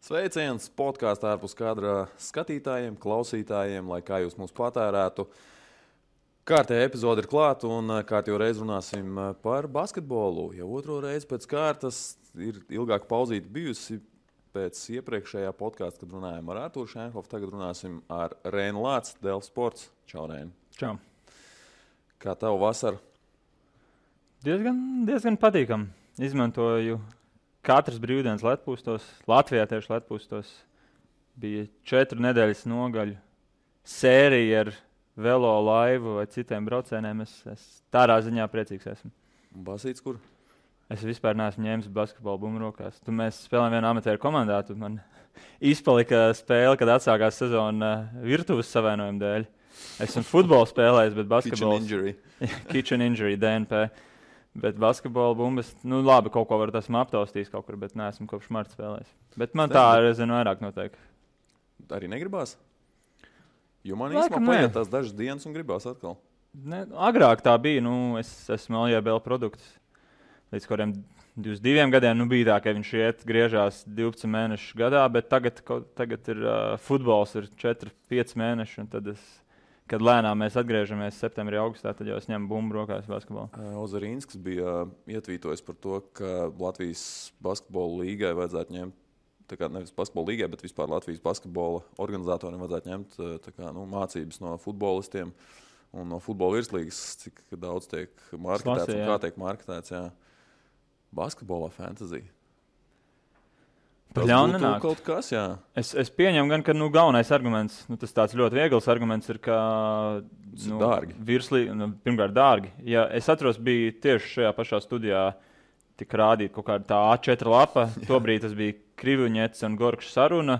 Sveiciens podkāstā ārpus kadra skatītājiem, klausītājiem, lai kā jūs mūs patērētu. Kārtējā epizode ir klāta un kārtējo reizi runāsim par basketbolu. Jau otro reizi pēc kārtas ir ilgāka pauzīte bijusi pēc iepriekšējā podkāsta, kad runājām ar Artūru Šenhofu. Tagad runāsim ar Reinu Lāci, Delfi Sports. Čau, Reini. Čau. Kā tev vasara? Diezgan patīkam. Izmantoju katras brīvdienas ledpūstos. Latvijā tieši ledpūstos bija 4 nedēļas nogaļu sērija ar velo laivu vai citiem braucējiem. Es tādā ziņā priecīgs esmu. Basīts kur? Es vispār neesmu ņēmis basketbolu bumbu rokās. Mēs spēlējām vienā amatieru komandā. Man izpalika spēle, kad atsākās sezona virtuves savainojuma dēļ. Esmu futbolu spēlējis, bet basketbols... Kitchen injury, DNP. Bet basketbola bumbas, labi, kaut ko var esmu aptaustījis kaut kur, bet neesmu kopš marta spēlējis. Bet man tā, es zinu, vairāk notiek. Arī negribās? Jo man īstenībā paiet tās dažas dienas un gribās atkal. Agrāk tā bija, es esmu LJBL produkts. Līdz kuriem 22 gadiem bija tā, ka viņš griežās 12 mēnešus gadā, bet tagad ir futbols ir 4-5 mēneši, un tad kad lēnām mēs atgriežamies septembrī, augustā, tad jau es ņemu bumbu rokās basketbolu. Ozarīnskis bija ietvītojis par to, ka Latvijas basketbola līgai vajadzētu ņemt, nevis basketbola līgai, bet vispār Latvijas basketbola organizatoriem vajadzētu ņemt mācības no futbolistiem un no futbola virslīgas, cik daudz tiek marketēts un kā tiek marketēts. Jā. Basketbolā fantasy. Tas būtu kaut kas, jā. Es pieņemu gan, ka galvenais arguments, tas tāds ļoti viegls arguments ir, ka dārgi. Pirmkārt dārgi. Ja es atceros, bija tieši šajā pašā studijā tika rādīta kaut kāda tā A4 lapa. Tobrīd tas bija Krivuņets un Gorkšs saruna.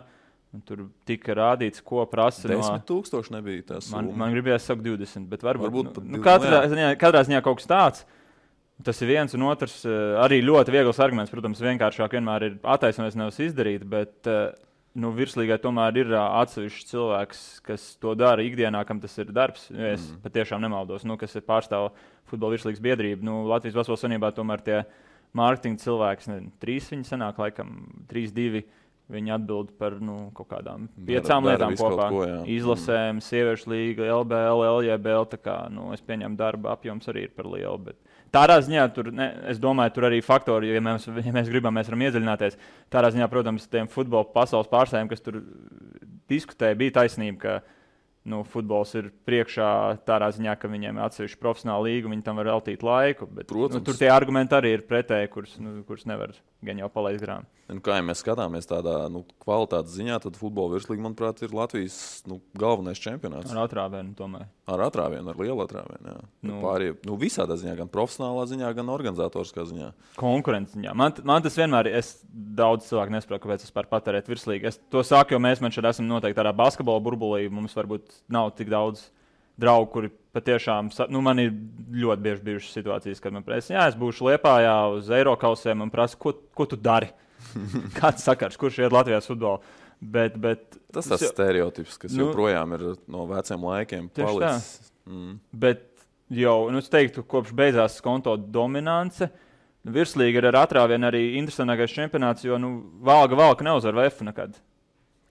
Un tur tika rādīts, ko prasa 10,000 nebija tas. Man gribējās sakt 20, bet varbūt katrā ziņā kaut kas tāds. Tas ir viens, un otrs arī ļoti viegls arguments. Protams, vienkāršāk vienmēr ir attaisnoties, nevis izdarīt, bet virslīgai tomēr ir atsevišķs cilvēks, kas to dara ikdienā, kam tas ir darbs. Es patiešām nemaldos, kas ir pārstāv futbola virslīgas biedrība. Latvijas Basketbola Savienībā tomēr tie mārketinga cilvēki, 3 viņi sanāk, laikam 3-2. Viņi atbild par kaut kādām 5 lietām kopā. Izlasēm, sieviešu līga, LBL, LJBL. Es pieņemu darba apjoms arī ir par lielu. Bet tādā ziņā es domāju, tur arī faktori, ja mēs gribam, mēs varam iedziļināties. Tādā ziņā, protams, tiem futbola pasaules pārstāvjiem, kas tur diskutēja, bija taisnība, ka futbols ir priekšā tādā ziņā, ka viņiem ir atsevišķi profesionāla līga, viņi tam var veltīt laiku. Bet, tur tie argumenti arī ir pretēji, kurus nevar gan jau palaist garām. Kā ja mēs skatāmies tādā kvalitātes ziņā, tad futbola virslīga, manuprāt, ir Latvijas galvenais čempionāts. Ar atrāvienu tomēr. Ar atrāvienu, ar lielu atrāvienu, jā. Pārējie, visādā ziņā, gan profesionālā ziņā, gan organizatoriskā ziņā. Konkurences ziņā. Man tas vienmēr, daudz cilvēku nesaprotu, kāpēc es par patērēt virslīgu. Es to saku, jo mēs šeit esam noteikti tādā basketbola burbulī, mums varbūt nav tik daudz draugu, kuri patiešām, man ir ļoti bieži bijušas situācijas, kad man prasa, es būšu Liepājā uz Eirokausiem un prasa, ko tu dari? Kāds sakars, kurš iet Latvijas futbolu? Bet tas stereotips, kas joprojām ir no veciem laikiem palicis. Bet jau, es teiktu, kopš beidzās konto dominance, virslīga ir ar atrāvienu arī interesantākais čempionāts, jo valka neuzvar VF nekad.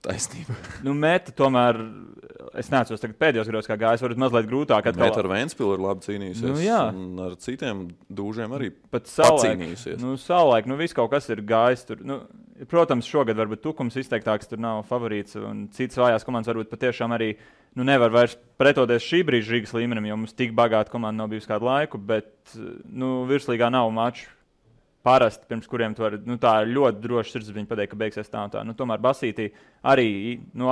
Taisnība. Meta tomēr, es neatceros tagad pēdējos gados, kā gājis, varbūt mazliet grūtāk. Meta ar Ventspilu ir labi cīnījusies, un ar citiem dūžiem arī pacīnījusies. Savulaik, viss kaut kas ir gājis tur. Protams, šogad varbūt Tukums izteiktāks, tur nav favorīts, un citas vājās komandas varbūt patiešām arī nevar vairs pretoties šī brīža Rīgas līmenim, jo mums tik bagāta komanda nav bijusi kādu laiku, bet virslīgā nav maču. Parasti, pirms kuriem tu vari, tā ir ļoti droši sirdsapziņa pateikt, ka beigsies tā un tā. Tomēr basītī arī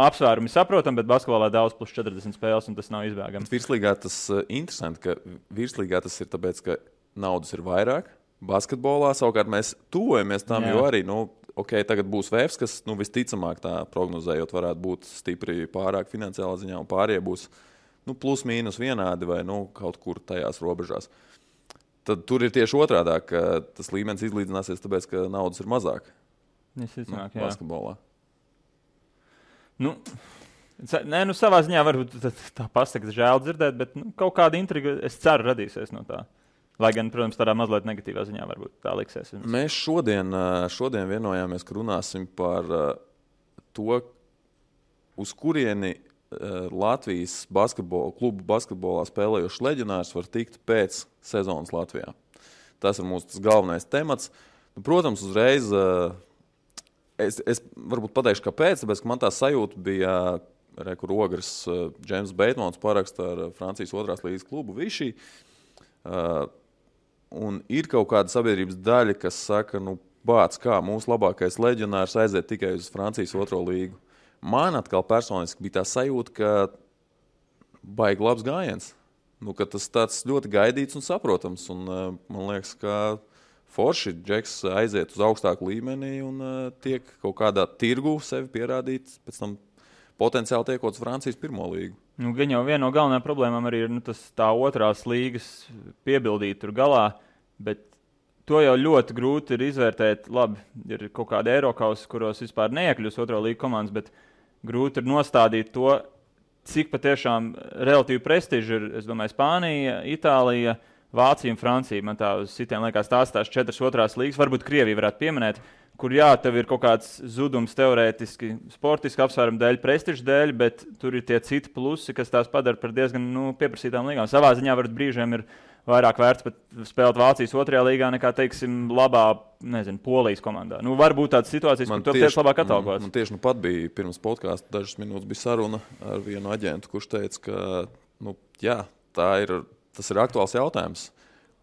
apsvērumi saprotam, bet basketbolā daudz plus 40 spēles, un tas nav izbēgams. Virslīgā tas interesanti, ka virslīgā tas ir tāpēc, ka naudas ir vairāk. Basketbolā savukārt mēs tuvojamies tam, jo arī, tagad būs VFs, kas visticamāk tā prognozējot varētu būt stipri pārāk finansiālā ziņā, un pārējie būs plus mīnus vienādi vai kaut kur tajās robežās. Tad tur ir tieši otrādāk, ka tas līmenis izlīdzināsies, tāpēc, ka naudas ir mazāk. Basketbolā. Savā ziņā varbūt tā pasaka žēl dzirdēt, bet kaut kāda intriga, es ceru, radīsies no tā. Lai gan, protams, tādā mazliet negatīvā ziņā varbūt tā liksies. Mēs šodien vienojāmies, ka runāsim par to, uz kurieni Latvijas klubu basketbolā spēlējošs leģionārs var tikt pēc sezonas Latvijā. Tas ir mūsu galvenais temats. Protams, uzreiz es varbūt pateikšu, kāpēc, tāpēc, ka man tā sajūta bija, kur Ogres Džeims Beitmans paraksta ar Francijas 2. līgas klubu Vichy. Un ir kaut kāda sabiedrības daļa, kas saka, bāc, kā mūsu labākais leģionārs aiziet tikai uz Francijas 2. līgu. Man atkal personiski bija tā sajūta, ka baigi labs gājiens. Ka tas tāds ļoti gaidīts un saprotams. Un, man liekas, ka forši Džeks aiziet uz augstāku līmeni un tiek kaut kādā tirgu sevi pierādīt, pēc tam potenciāli tiekot uz Francijas 1. līgu. Gan jau viena no galvenajām problēmām arī ir tā 2. līgas piebildīt tur galā, bet to jau ļoti grūti ir izvērtēt. Labi, ir kaut kāda Eirokausa, kuros vispār neiekļūs 2. līga komandas, bet grūti ir nostādīt to, cik patiešām relatīvi prestiži ir, es domāju, Spānija, Itālija, Vācija un Francija. Man tā uz citiem liekas tās 4 2. līgas, varbūt Krievija varētu pieminēt, kur tev ir kaut kāds zudums teorētiski, sportiski apsvērumu dēļ, prestižu dēļ, bet tur ir tie citi plusi, kas tās padara par diezgan pieprasītām līgām. Savā ziņā varbūt brīžiem ir vairāk vērts pat spēlēt Vācijas 2. līgā nekā, teiksim, labā, Polijas komandā. Varbūt tādas situācijas, kur tu tieši labāk atalgots. Man tieši pat bija pirms podkāsta dažas minūtes bija saruna ar vienu aģentu, kurš teica, ka tas ir aktuāls jautājums,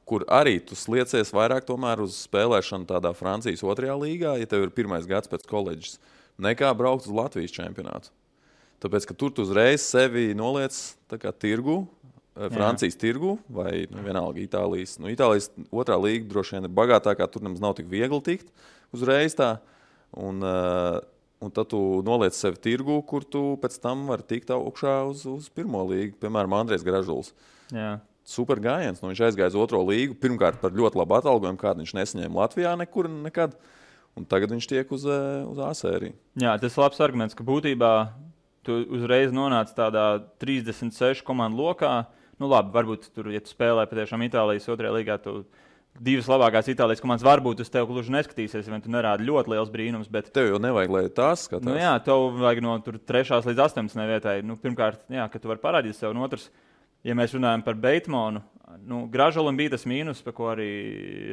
kur arī tu sliecies vairāk tomēr uz spēlēšanu tādā Francijas 2. līgā, ja tev ir 1. gads pēc koledžas, nekā braukt uz Latvijas čempionātu. Tāpēc, ka tur tu uzreiz sevi noliec tā kā tirgu, Francijas tirgu vai vienalga Itālijas. Itālijas 2. līga droši vien ir bagātākā, tur nemaz nav tik viegli tikt uzreiz tā. Un tad tu noliec sevi tirgu, kur tu pēc tam vari tikt augšā uz 1. līgu. Piemēram, Andrejs Gražuls. Jā. Super gājiens. Viņš aizgāja uz 2. līgu. Pirmkārt par ļoti labu atalgojumu, kādu viņš nesaņēma Latvijā nekur nekad. Un tagad viņš tiek uz A sēriju. Jā, tas ir labs arguments, ka būtībā tu uzreiz nonāc tādā 36 komandu lokā. Labi, varbūt tur, ja tu spēlē patiešām Itālijas 2. līgā, tu 2 labākās Itālijas komandas varbūt uz tevi gluži neskatīsies, vai tu nerādi ļoti liels brīnums. Bet tev jau nevajag, lai tās skatās. Jā, tev vajag no 3. līdz 18. vietai. Pirmkārt, ka tu vari parādīt sev. Un otrs, ja mēs runājam par Beitmanu, Gražulim bija tas mīnus, par ko arī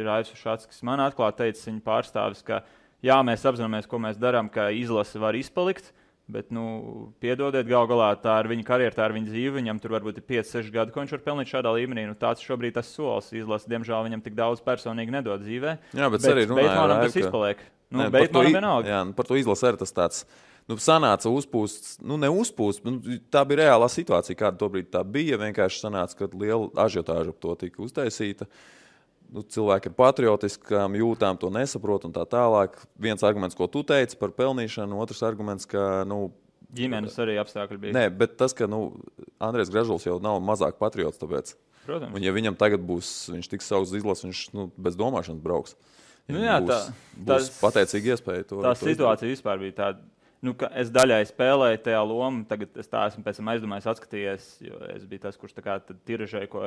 Raivs Ušats, kas man atklāti teica, viņa pārstāvis, ka jā, mēs apzināmies, ko mēs darām, ka izlase var izpalikt. Bet, piedodiet, gal galā tā ir viņa karjera, tā ir viņa dzīve. Viņam tur varbūt ir 5-6 gadi, ko viņš var pelnīt šādā līmenī. Tāds šobrīd tas solis. Izlase, diemžēl, viņam tik daudz personīgi nedod dzīvē. Jā, bet arī Beitmanam tas izpaliek. Beitmanam vienalga. Jā, par to izlase arī tas tāds. Sanāca uzpūsts, neuzpūsts. Tā bija reālā situācija, kāda tobrīd tā bija. Vienkārši sanāca, ka liela ažiotāža ap to tika uztaisīta. Cilvēki ir patriotiski, jūtām to nesaprot un tā tālāk. Viens arguments, ko tu teici par pelnīšanu, otrs arguments, ka ģimenes arī apstākļi bija. Nē, bet tas, ka Andrejs Gražuls jau nav mazāk patriots, tāpēc. Protams. Un ja viņam tagad viņš tiks sauks izlases, viņš bez domāšanas brauks. Būs pateicīgi iespēja to. Tā situācija vispār bija tāda. Ka es daļai spēlēju tajā lomu, tagad es tā esmu pēc tam aizdomājis, atskatījies, jo es biju tas, kurš tā kā tiražēja, ko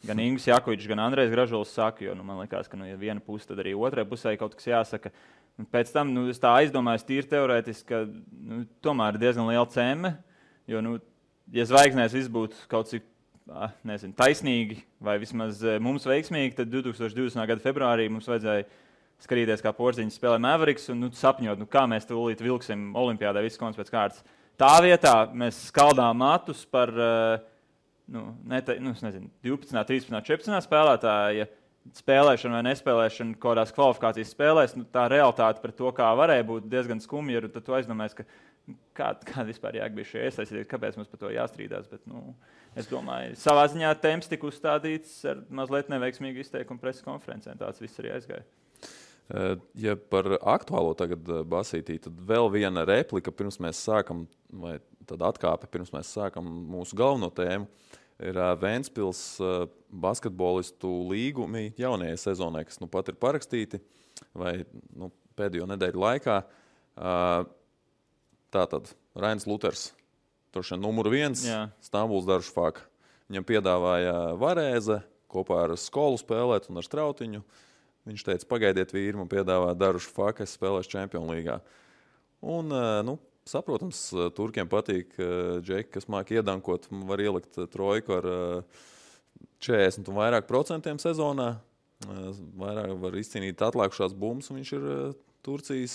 gan Ingūns Jakovičs, gan Andrejs Gražuls saka, jo man liekas, ka ja viena puse, tad arī otrai pusē kaut kas jāsaka. Un pēc tam es tā aizdomājos tīri teorētiski, ka tomēr ir diezgan liela cēme, jo, ja zvaigznēs viss būtu kaut cik, taisnīgi vai vismaz mums veiksmīgi, tad 2020. gada februārī mums vajadzēja skatīties, kā Porziņš spēlē Mavericks un sapņot, kā mēs tūlīt vilksim olimpiādē visas komandas pēc kārtas. Tā vietā mēs skaldām matus par 12, 13, 14 spēlētāja spēlēšana vai nespēlēšana kaut kādās kvalifikācijas spēlēs. Tā realitāte par to, kā varēja būt diezgan skumja, tad tu aizdomājies, ka kāda vispār jāgbija šie iesaistīties, kāpēc mums par to jāstrīdās. Bet, es domāju, savā ziņā temps tika uzstādīts ar mazliet neveiksmīgu izteikumu preses konferencē. Tāds viss arī aizgāja. Ja par aktuālo tagad basītī, tad vēl viena replika pirms mēs sākam, vai tad atkāpe pirms mēs sākam mūsu galveno tēmu, ir Ventspils basketbolistu līgumi jaunajai sezonai, kas pat ir parakstīti, vai pēdējo nedēļu laikā. Tātad Rainis Luters, droši vien numur 1, Stambuls Darušafaka. Viņam piedāvāja Varēze kopā ar Skolu spēlēt un ar Strautiņu. Viņš teica, pagaidiet vīri, man piedāvā Darušafaka, es spēlēšu Čempionu līgā. Un, saprotams, turkiem patīk džeki, kas māk iedankot, var ielikt trojku ar 40 un vairāk procentiem sezonā. Vairāk var izcīnīt atlikušās bumbas, un viņš ir Turcijas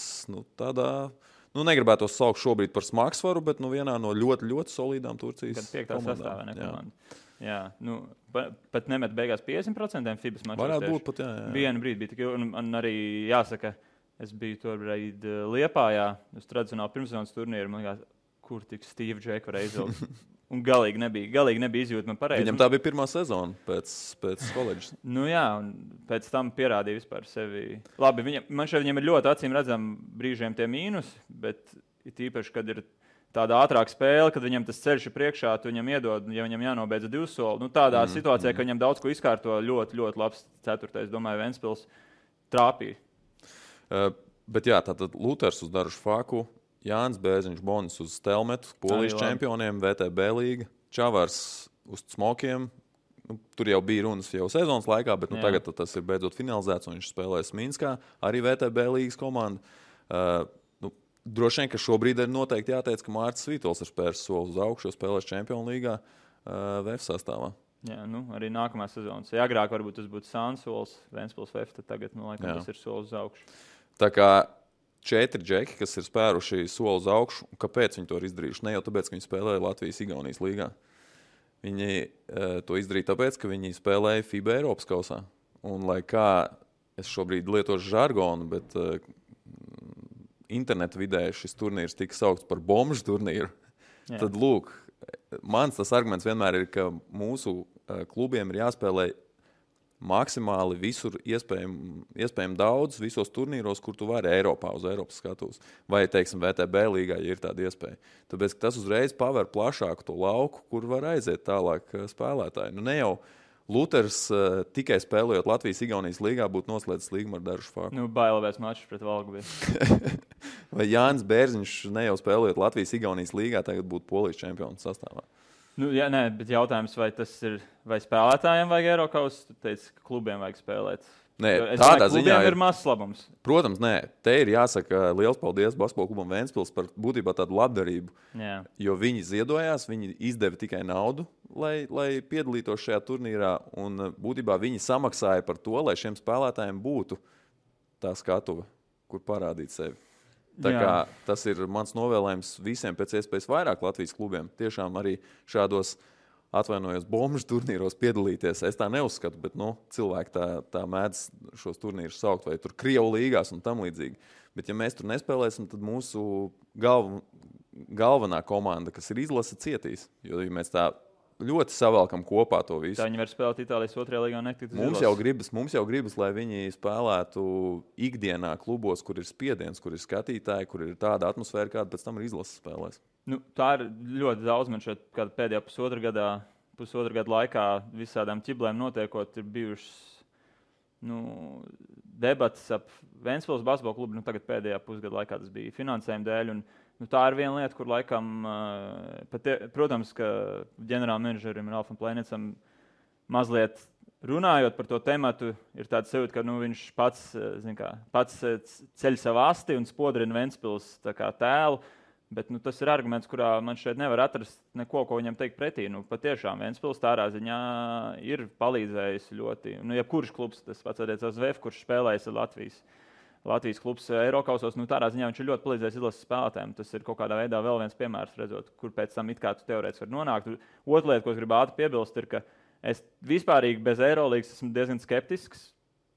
tādā, negribētu to saukt šobrīd par smagsvaru, bet vienā no ļoti, ļoti solīdām Turcijas komandām. Jā, pat nemet beigās 50% FIBAs mačos. Varētu būt pat, jā. Vienu brīdi bija tik, un arī jāsaka, es biju tobrīd Liepājā, uz tradicionālu pirmssezonas turnīru, man liekas, kur tik Steve Džeku var izvilkt. Un galīgi nebija izjūtama pareizi. Viņam tā bija pirmā sezona pēc koledžas. Jā, un pēc tam pierādīja vispār sevi. Labi, man šeit viņam ir ļoti acīm redzami brīžiem tie mīnus, bet īpaši, kad ir tāda ātrāka spēle, kad viņam tas ceļš ir priekšā, tu viņam iedod, ja viņam jānobeidz 2 soli. Tādā situācijā, ka viņam daudz ko izkārto, ļoti, ļoti labs 4. domāju, Ventspils trāpīja. Bet jā, tātad Luters uz Darušu Faku, Jānis Bērziņš Bonis uz Stelmetu, Polijas čempioniem, VTB līga, Čavars uz Smokiem. Tur jau bija runas jau sezonas laikā, bet tagad tas ir beidzot finalizēts, un viņš spēlēs Minskā, arī VTB līgas komanda. Droši vien, ka šobrīd ir noteikti jāteic, ka Mārcis Svītols ir spērs soli uz augšu, spēlēs Čempionu līgā VF sastāvā. Jā, arī nākamā sezonas. Ja agrāk varbūt tas būtu Sansols, Ventspils VF, tad tagad, laikam, tas ir solis uz augšu. Tā kā 4 džeki, kas ir spēruši soli uz augšu, kāpēc viņi to ir izdarījuši? Ne jau tāpēc, ka viņi spēlēja Latvijas-Igaunijas līgā. Viņi to izdarīja tāpēc, ka viņi spēlēja FIBA Eiropas kausā. Un lai kā es šobrīd lietošu žargonu, bet interneta vidē šis turnīrs tika saukts par bomžu turnīru, tad lūk, mans tas arguments vienmēr ir, ka mūsu klubiem ir jāspēlē maksimāli visur iespējami daudz, visos turnīros, kur tu vari Eiropā, uz Eiropas skatuves. Vai, teiksim, VTB līgā, ja ir tāda iespēja. Tāpēc, ka tas uzreiz paver plašāku to lauku, kur var aiziet tālāk spēlētāji. Ne jau Luters tikai spēlējot Latvijas-Igaunijas līgā būtu noslēdzis līgumu ar Darušu Faku. Bailēs mačs pret Valgu bija. Vai Jānis Bērziņš ne jau spēlējot Latvijas-Igaunijas līgā, tagad būtu Polijas čempionu sastāvā? Bet jautājums, vai spēlētājiem vajag Eirokaus? Tu teici, ka klubiem vajag spēlēt. Nē, tādā ziņā ir mazs labums. Protams, nē. Te ir jāsaka liels paldies basketbola klubam Ventspils par būtībā tādu labdarību. Jā. Jo viņi ziedojās, viņi izdeva tikai naudu, lai piedalītos šajā turnīrā. Un būtībā viņi samaksāja par to, lai šiem spēlētājiem būtu tā skatuve, kur parādīt sevi. Tā kā tas ir mans novēlējums visiem pēc iespējas vairāk Latvijas klubiem. Tiešām arī šādos atvainojos bomžu turnīros piedalīties. Es tā neuzskatu, bet cilvēki tā mēdz šos turnīrus saukt, vai tur Krievu līgās un tam līdzīgi. Bet ja mēs tur nespēlēsim, tad mūsu galvenā komanda, kas ir izlase, cietīs. Jo ja mēs tā ļoti savalkam kopā to visu. Tā viņi var spēlēt Itālijas 2. līgā un netikt uz izlases. Mums jau gribas, lai viņi spēlētu ikdienā klubos, kur ir spiediens, kur ir skatītāji, kur ir tāda atmosfēra, kāda pēc tam ir izlases spēlēs. Tā ir ļoti daudz. Man šeit pēdējā pusotra gada laikā visādām ķiblēm notiekot, ir bijušas debatas ap Ventspils basketbola klubu. Tagad pēdējā pusgada laikā tas bija finansējuma dēļ. Tā ir viena lieta, kur laikam, protams, ka ģenerālmenedžerim Ralfam Plēnicam mazliet runājot par to tematu, ir tāds sajūta, ka viņš pats ceļ savu asti un spodrina Ventspils tēlu. Bet tas ir arguments, kurā man šeit nevar atrast neko, ko viņam teikt pretī. Patiešām Ventspils tādā ziņā ir palīdzējis ļoti. Jebkurš klubs, tas pats attiecās VF, kurš spēlējis Latvijas klubs Eirokausos, tādā ziņā viņš ir ļoti palīdzējis izlases spēlētājiem. Tas ir kaut kādā veidā vēl viens piemērs, redzot, kur pēc tam it kā tu teorētiski var nonākt. Otra lieta, ko es gribu ātri piebilst, ir, ka es vispārīgi bez Eirolīgas esmu diezgan skeptisks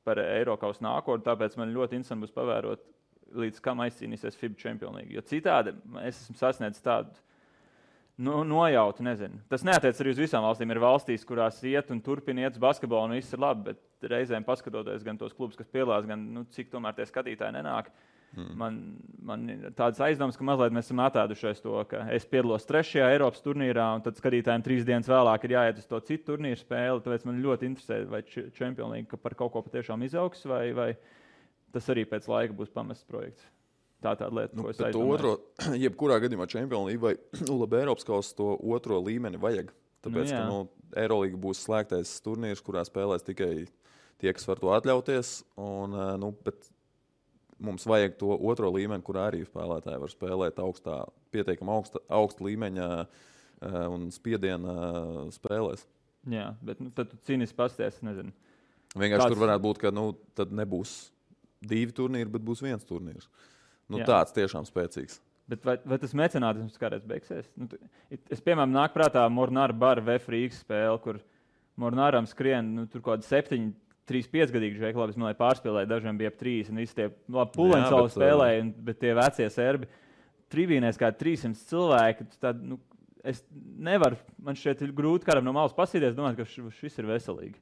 par Eirokausu nākotni, tāpēc man ļoti interesanti būs pavērot, līdz kam aizcīnīsies FIBA Čempionu līga. Jo citādi es esmu sasniedzis tādu nojautu, nezinu. Tas neatiec arī uz visām valstīm. Ir valstīs, kurās iet un turpina iet uz basketbolu, un viss ir labi, bet reizēm paskatoties gan tos klubus, kas piedalās, gan cik tomēr tie skatītāji nenāk. Man ir tāds aizdoms, ka mazliet mēs esam atēdušies to, ka es piedalos 3. Eiropas turnīrā, un tad skatītājiem 3 dienas vēlāk ir jāiet uz to citu turnīru spēli. Tāpēc man ļoti interesē, vai Čempionu līga par kaut ko patiešām izaugs, vai tas arī pēc laika būs pamests projekts. Tā tāda lieta, ko es aizdomāju. Jebkurā gadījumā Čempionu līga vai labi Eiropas kausa to otro līmeni vajag. Tāpēc, ka Eirolīga būs slēgtais turnīrs, kurā spēlēs tikai tie, kas var to atļauties. Bet mums vajag to otro līmeni, kur arī spēlētāji var spēlēt pietiekami augsta līmeņa un spiediena spēlēs. Jā, bet tad tu cīnīsi pasties, nezinu. Vienkārši tur varētu būt, ka tad nebūs 2 turnīri, bet būs 1 turnīrs. Tāds tiešām spēcīgs. Bet vai tas mecenātisms kādreiz beigsies? Es, piemēram, nāk prātā Mornāra bara VF Rīgas spēle, kur Mornāram skrien tur kaut kādi 7, 3-5 gadīgi žēk, labi, es man pārspēlēju, dažiem bija ap 3, un visi tie puleņsauli spēlēja, bet tie vecie serbi tribīnēs kā 300 cilvēki, tad, es nevaru, man šķiet grūti kādam no malas pasīties, domāt, ka šis ir veselīgi.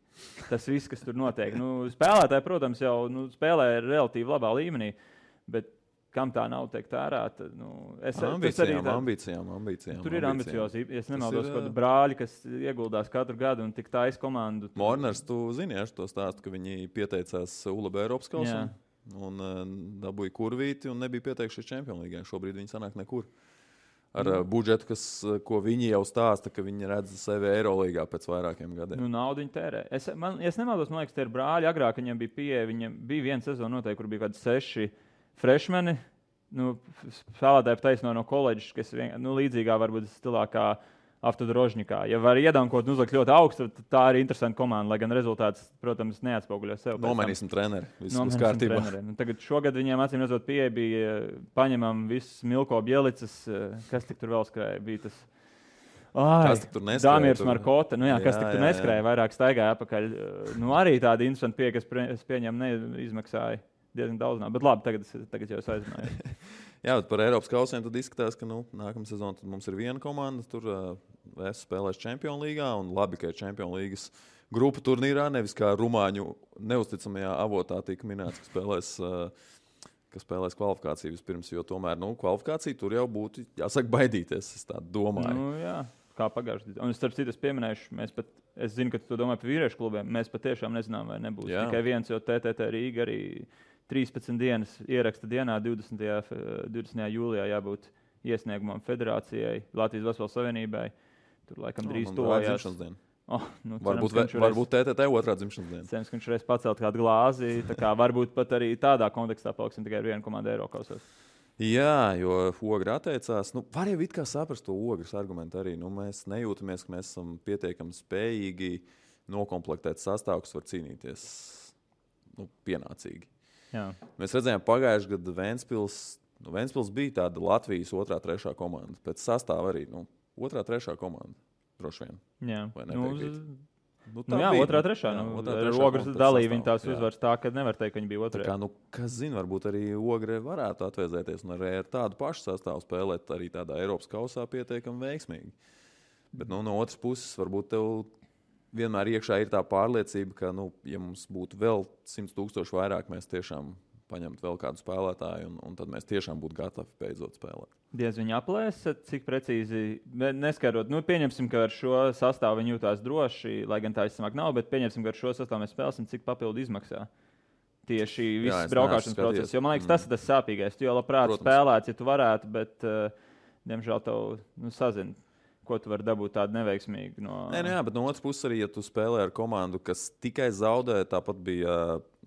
Tas viss, kas tur notiek. Spēlētāji, protams, jau spēlē relatīvi labā līmenī, bet kam tā nav teikt ārāt? Ambīcijām. Tur ir ambiciozi. Es nemaldos, kādu brāļi, kas ieguldās katru gadu un tik taisa komandu. Morners, tu zini, to stāstu, ka viņi pieteicās ULB Eiropas kausam un dabūja kurvīti un nebija pieteikušies Champions League. Šobrīd viņi sanāk nekur. Ar budžetu, ko viņi jau stāsta, ka viņi redz sevi Eirolīgā pēc vairākiem gadiem. Naudu viņi tērē. Es nemaldos, man liekas, tie ir brāļi. Agrāk viņiem bija pieeja, viņiem bija viena sezona noteikti, kur bija kādi 6 freshmeni, spēlētāji taisno no koledžas, kas līdzīgā varbūt stilā kā Avtodrožņikā. Ja var iedankot un uzlikt ļoti augstu, tad tā ir interesanta komanda, lai gan rezultāts, protams, neatspoguļo sev. Nomainīsim treneri. Viss kārtībā. Tagad šogad viņiem acīm redzot pieeja bija paņemam viss Milko Bielicas, kas tik tur vēl skrēja, bija tas. Kas tik tur neskrēja? Dāmirs Markota, kas tik tur neskrēja, vairāk staigāja apakaļ. Arī tāda interesanta pieeja, kas pieņem neizmaksāja. Diezgan daudz, bet labi, tagad jau es aizmēju. Jā, bet par Eiropas kausiem tad izskatās, ka nākamā sezona mums ir viena komanda, tur es spēlēšu Champions Līgā, un labi, ka ir Champions Līgas grupu turnīrā, nevis kā rumāņu neusticamajā avotā tika minēts, ka spēlēs kvalifikāciju vispirms, jo tomēr kvalifikācija tur jau būtu jāsaka baidīties, es tā domāju. Jā. Kā pagājušajā gadā. Un starp citu, es pieminēšu, es zinu, ka tu to domā par vīriešu klubiem. Mēs patiešām nezinām, vai nebūs tikai viens, jo TTT Rīga arī 13 dienas ieraksta dienā, 20. jūlijā jābūt iesniegumam federācijai, Latvijas Basketbola Savienībai. Tur laikam drīz tojās. Varbūt TTT otrā dzimšanas diena. Cerams, ka viņš reiz pacelt kādu glāzi. Varbūt pat arī tādā kontekstā paliksim tikai ar vienu komandu Eirokausos. Jā, jo Ogre atteicās. Var jau it kā saprast to Ogres argumentu arī. Mēs nejūtamies, ka mēs esam pietiekami spējīgi nokomplektēt sastāvu, kas var cīnīties pienācīgi. Jā. Mēs redzējām pagājušajā gadā Ventspils bija tāda Latvijas 2., 3. komanda. Pēc sastāva arī 2., 3. komanda. Droši vien. Jā, vai nepiekrīt? Jā, 2., 3. Ogres dalīja viņa tās uzvaras tā, ka nevar teikt, ka viņi bija 2. Kas zina, varbūt arī Ogre varētu atvēzēties un arī ar tādu pašu sastāvu spēlēt arī tādā Eiropas kausā pietiekami veiksmīgi. Bet no otras puses, varbūt tev vienmēr iekšā ir tā pārliecība, ka, ja mums būtu vēl 100,000 vairāk, mēs tiešām paņemt vēl kādu spēlētāju, un tad mēs tiešām būtu gatavi beidzot spēlēt. Diez viņi aplēsa, cik precīzi, neskarot, pieņemsim, ka ar šo sastāvu viņi jūtās droši, lai gan tā izsamāk nav, bet pieņemsim, ka ar šo sastāvu mēs spēlēsim, cik papildu izmaksā tieši viss braukāšanas process. Jo man liekas, tas ir tas sāpīgais. Tu jau labprāt spēlēt, ja tu varētu, bet, diemžēl, tev sazina, ko tu vari dabūt tādu neveiksmīgu. Jā, bet no otras puses arī, ja tu spēlē ar komandu, kas tikai zaudē, tāpat bija,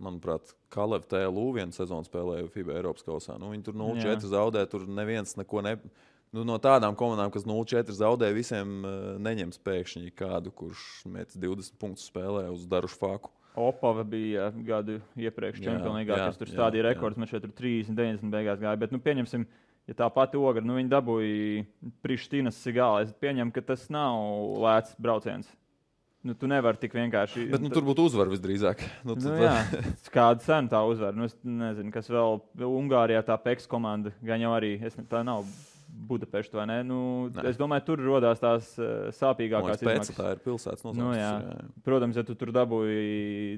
manuprāt, Kalev TLU vienu sezonu spēlēja FIBA Eiropas kausā. Viņi tur 0-4 zaudē, tur neviens neko no tādām komandām, kas 0-4 zaudē, visiem neņems pēkšņi kādu, kurš met 20 punktus spēlē uz darušu faku. Opava bija gadu iepriekš Champions League, kas tur stādīja rekords, man šeit tur 30-90 beigās gāja, bet pieņemsim, ja tā pati Ogre, viņi dabūja Prištinas Sigāla. Es pieņemu, ka tas nav lēts brauciens. Tu nevari tik vienkārši. Bet tur būtu uzvara visdrīzāk. Jā, kāda cena tā uzvara. Es nezinu, kas vēl Ungārijā tā PEX komanda, gan jau arī, tā nav Budapešta, vai ne? Es domāju, tur rodās tās sāpīgākās izmaksas. Tā ir pilsētas nosaukums. Jā. Protams, ja tu tur dabūji,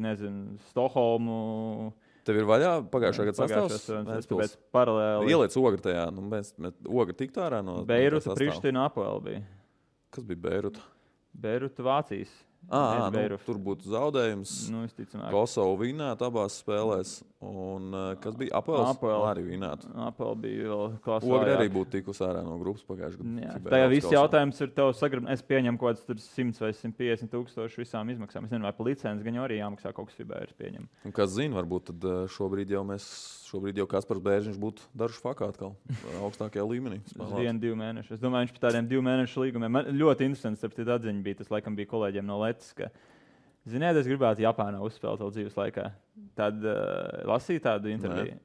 Stokholmu. Tev ir vaļā pagājušā gada sastāvs? Tāpēc paralēli. Ieliec Ogre tajā. Ogre tiktu ārā no Beiruta, Priština, Apoel bija. Kas bija Beiruta? Beiruta, Vācijas. Tur būtu zaudējums. Visticamāk. Kosovu vinēt abās spēlēs. Un kas bija Apels? Arī vinētu. Apel bija vēl klasē. Ogre arī būtu tikus ārā no grupas pagājušajā gadā. Tajā viss jautājums ir tev es pieņemu kaut kāds 100 vai 150 tūkstoši visām izmaksām. Es nezinu, vai pa licenci gan jau arī jāmaksā kaut kas FIBA ir pieņem. Un kas zina, varbūt tad šobrīd jau Kaspars Bērziņš būtu dažu fakā atkal augstākajā līmenī. 1-2 mēneši. Es domāju, viņš pa tādiem 2 mēnešu līgumiem. Man ļoti interesants, starp citu atziņa bija, tas laikam bija kolēģiem no Letas, ka ziniet, es gribētu Japānā uzspēlēt vēl dzīves laikā. Tad lasīju tādu interviju.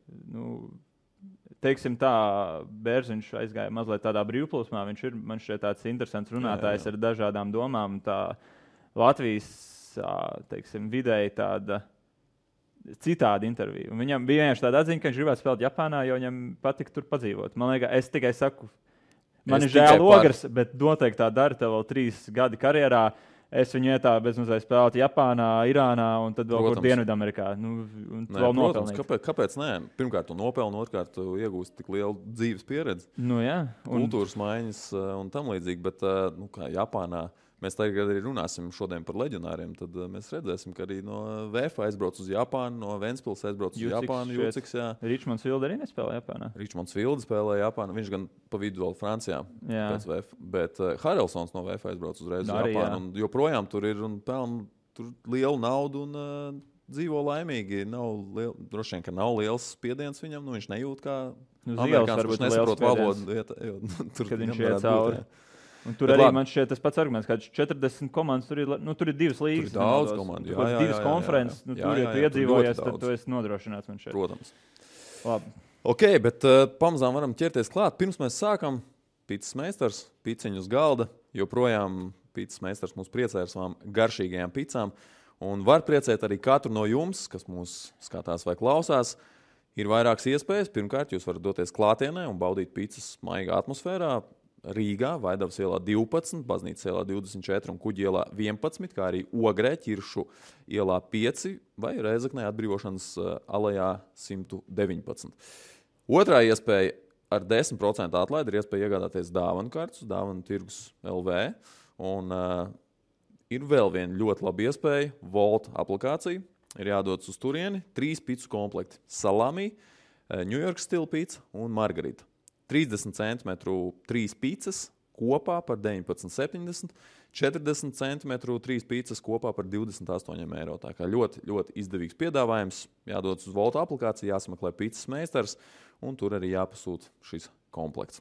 Teiksim tā, Bērziņš aizgāja mazliet tādā brīvplūsmā. Viņš ir, man šķiet, tāds interesants runātājs ar dažādām domām. Tā Latvijas, teiksim, vidēji tāda citāda intervija. Un viņam bija vienkārši tāda atziņa, ka viņš gribētu spēlēt Japānā, jo viņam patika tur padzīvot. Man liekas, es tikai saku, man ir žēl Ogres, bet noteikti tā dara tev vēl 3 gadi karjerā. Es viņu ietāju bezmazliet spēlēt Japānā, Irānā un tad vēl kur Dienvidamerikā. Vēl nopelnīt. Kāpēc nē? Pirmkārt, tu nopelni, otrkārt, tu iegūsti tik lielu dzīves pieredzi. Kultūras maiņas un tam līdzīgi, bet kā Japānā. Mēs tagad arī runāsim šodien par leģionāriem, tad mēs redzēsim, ka arī no VF aizbrauc uz Japānu, no Ventspils aizbrauc uz Japānu. Jūciks, Ričmonds Vilde arī nespēlē Japānā. Ričmonds Vilde spēlē Japānu, viņš gan pa vidu vēl Francijā pēc VF, bet Harelsons no VF aizbrauc uzreiz uz Japānu. Un joprojām tur ir un pelna tur lielu naudu un dzīvo laimīgi. Droši vien, ka nav liels spiediens viņam, viņš nejūt kā amerikāns, kurš nesaprot valodu. Kad viņš iet cauri. Un tur arī man šķiet tas pats arguments, ka 40 komandas, tur ir 2 līgas. Tur ir daudz komandu. 2 konferences, tur, ja tu iedzīvojies, tad tu esi nodrošināts man šeit. Protams. Labi. Ok, bet pamazām varam ķerties klāt. Pirms mēs sākam, pīcis meistars, pīciņu uz galda. Joprojām pīcis meistars mūs priecē ar savām garšīgajām picām. Un var priecēt arī katru no jums, kas mūs skatās vai klausās. Ir vairākas iespējas. Pirmkārt, jūs varat doties klātienē un baudīt pīcis maigā atmosfērā. Rīgā, Vaidavas ielā 12, Baznīcas ielā 24 un Kuģi ielā 11, kā arī Ogrē, Ķiršu ielā 5 vai Rēzaknē atbrīvošanas alejā 119. Otrā iespēja ar 10% atlaidi ir iespēja iegādāties dāvanu kartus, dāvanu tirgus LV. Un ir vēl viena ļoti laba iespēja, Volt aplikācija. Ir jādodas uz turieni, 3 picu komplekti, salami, New York stila pica un margarita. 30 cm 3 pīcas kopā par 19,70, 40 cm 3 pīcas kopā par 28 eiro. Tā kā ļoti, ļoti izdevīgs piedāvājums. Jādodas uz Volta aplikāciju, jāsameklē pīcas meistars, un tur arī jāpasūta šis komplekts.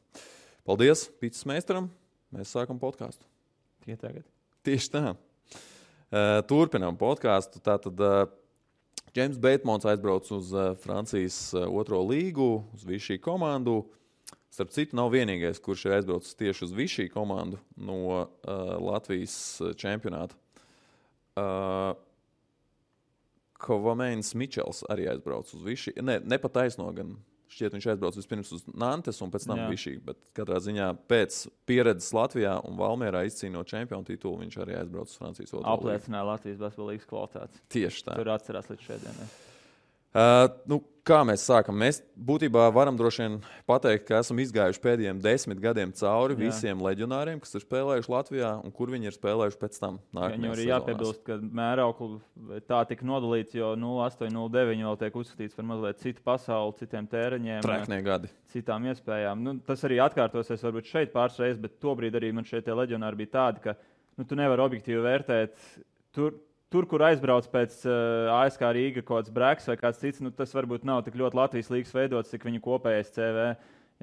Paldies pīcas meistaram. Mēs sākam podkāstu. Tieši tā. Turpinām podkāstu. Tātad James Batemans aizbrauc uz Francijas 2. līgu, uz Vichy komandu. Starp citu, nav vienīgais, kurš ir aizbraucis tieši uz Vichy komandu no Latvijas čempionāta. Kovamēns Mičels arī aizbrauc uz Vichy. Nepataisno gan. Šķiet, viņš aizbrauc vispirms uz Nantes un pēc tam Vichy, bet katrā ziņā pēc pieredzes Latvijā un Valmierā izcīnot čempionu titulu, viņš arī aizbrauc uz Francijas 2. līgu. Apliecināja Latvijas basketbola līgas kvalitātes. Tieši tā. Tur atcerās līdz šodienai. Kā mēs sākam? Mēs būtībā varam droši vien pateikt, ka esam izgājuši pēdējiem 10 gadiem cauri visiem leģionāriem, kas ir spēlējuši Latvijā un kur viņi ir spēlējuši pēc tam. Viņam arī jāpiebilst, ka mēraukli tā tika nodalīts, jo 08, 09 vēl tiek uzskatīts par mazliet citu pasauli, citiem tēriņiem, treknie gadi, citām iespējām. Tas arī atkārtosies varbūt šeit pāris reizes, bet tobrīd arī man šeit tie leģionāri bija tādi, ka tu nevari objektīvi vērtēt Tur, kur aizbrauc pēc ASK Rīga kaut kāds Breks vai kāds cits, tas varbūt nav tik ļoti Latvijas līgas veidots, cik viņu kopējais CV.